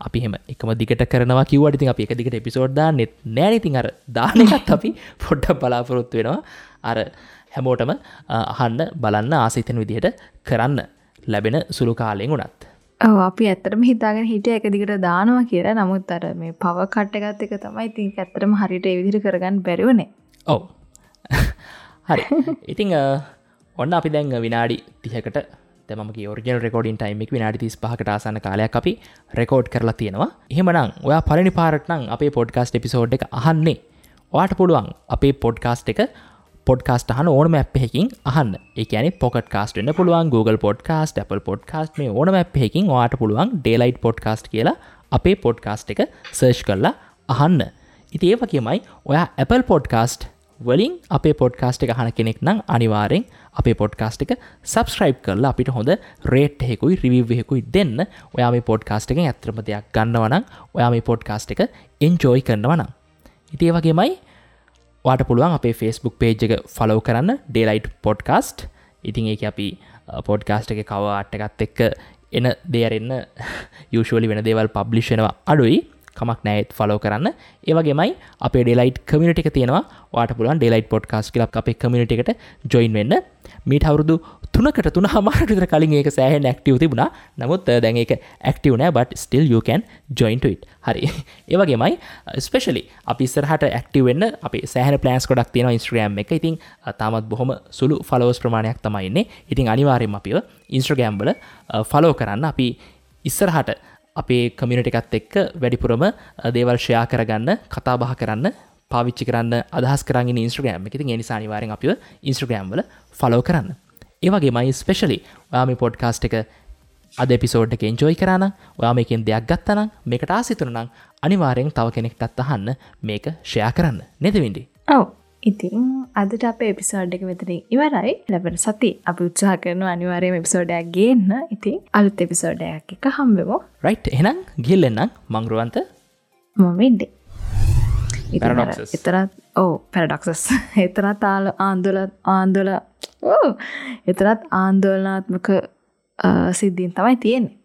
අපි එහෙම එකම දිගට කරනවා කිව්වට ඉතින් අපි එක දිගට එපිසෝඩ් දාන්නෙත් නෑනේ. ඉතින් අර දාන එකත් අපි පොඩ්ඩක් බලාපොරොත්තු වෙනවා. අර හැමෝටම අහන්න බලන්න ආස හිතෙන විදිහට කරන්න ලැබෙන සුළු කාලයෙන් උනත්. ඔව්, අපි ඇත්තටම හිතාගෙන හිටියා එක දිගට දානවා කියලා. නමුත් අර මේ පවර් කට් එකත් එක තමයි ඉතින් ඇත්තටම හරියට ඒ විදිහට කරගන්න බැරි වුණේ. ඔව්. හරි. ඉතින් ඔන්න අපි දැන් විනාඩි 30කට දැන් මම කිය ඔරිජිනල් රෙකෝඩින් ටයිම් එක විනාඩි 35කට ආසන්න කාලයක් අපි රෙකෝඩ් කරලා තියෙනවා. එහෙමනම් ඔයා පළවෙනි පාරට නම් අපේ පොඩ්කාස්ට් එපිසෝඩ් එක අහන්නේ. ඔයාට පුළුවන් අපේ පොඩ්කාස්ට් එක පොඩ්කාස්ට් අහන ඕනම ඇප් එකකින් අහන්න. ඒ කියන්නේ Pocket Cast වෙන්න පුළුවන්, Google Podcast, Apple Podcast මේ ඕනම ඇප් එකකින් ඔයාට පුළුවන් Daylight Podcast කියලා අපේ පොඩ්කාස්ට් එක සර්ච් කරලා අහන්න. ඉතින් ඒ වගේමයි ඔයා Apple Podcast වලින් අපේ පොඩ්කාස්ට් එක අහන කෙනෙක් නම් අනිවාර්යෙන් අපේ පොඩ්කාස්ට් එක සබ්ස්ක්‍රයිබ් කරලා අපිට හොඳ රේට් එකකුයි රිවිව් එකකුයි දෙන්න. ඔයා මේ පොඩ්කාස්ට් එකෙන් ඇත්තටම දෙයක් ගන්නවා නම්, ඔයා මේ පොඩ්කාස්ට් එක එන්ජොයි කරනවා නම්. ඉතින් ඒ වගේමයි ඔයාට පුළුවන් අපේ Facebook page එක ෆලෝ කරන්න, Daylight Podcast. ඉතින් ඒකේ අපි පොඩ්කාස්ට් එකේ කවර් ආර්ට් එකත් එක්ක එන දේ අරින්න යූෂුවලි වෙන දේවල් පබ්ලිෂ් වෙනවා අඩුයි. කමක් නෑ, ඒත් ෆලෝ කරන්න. ඒ වගේමයි අපේ Daylight community එක තියෙනවා. ඔයාට පුළුවන් Daylight Podcast කියලා අපේ කමියුනිටි එකට ජොයින් වෙන්න. මීට අවුරුදු 3කට 3.5කට විතර කලින් ඒක සෑහෙන ඇක්ටිව් තිබුණා. නමුත් දැන් ඒක ඇක්ටිව් නෑ, but still you can join to it. හරි. ඒ වගේමයි ස්පෙෂලි අපි ඉස්සරහට ඇක්ටිව් වෙන්න අපේ සෑහෙන ප්ලෑන්ස් ගොඩක් තියෙනවා Instagram එක. ඉතින් තාමත් බොහොම සුළු ෆලෝවර්ස් ප්‍රමාණයක් තමයි ඉන්නේ. ඉතින් අනිවාර්යයෙන්ම අපිව Instagram වල ෆලෝ කරන්න. අපි ඉස්සරහට අපේ කමියුනිටි එකත් එක්ක වැඩිපුරම දේවල් ෂෙයා කරගන්න, කතා බහ කරන්න පාවිච්චි කරන්න අදහස් කරන් ඉන්නේ Instagram එක. ඉතින් ඒ නිසා අනිවාර්යෙන් අපිව Instagram වල ෆලෝ කරන්න. ඒ වගේමයි ස්පෙෂලි ඔයා මේ පොඩ්කාස්ට් එක අද එපිසෝඩ් එක එන්ජොයි කරා නම්, ඔයා මේකෙන් දෙයක් ගත්තා නම්, මේකට ආස හිතුණා නම් අනිවාර්යෙන් තව කෙනෙක්ටත් අහන්න මේක ෂෙයා කරන්න. නේද වින්ඩි? ඔව්. ඉතින් අදට අපේ එපිසෝඩ් එක මෙතනින් ඉවරයි. ලැබෙන සති අපි උත්සාහ කරනවා අනිවාර්යයෙන්ම එපිසෝඩ් එකක් ගේන්න. ඉතින් අලුත් එපිසෝඩ් එකක් එක්ක හම්බෙමු. රයිට්, එහෙනම් ගිහින් එන්නම්. මං රුවන්ත. මම වින්ඩි. ඉතින් එතරත් ඔව් පැරඩොක්සස්. එතරත් ආන්දෝලන ඔව් එතරත් ආන්දෝලනාත්මක සිද්ධීන් තමයි තියෙන්නේ.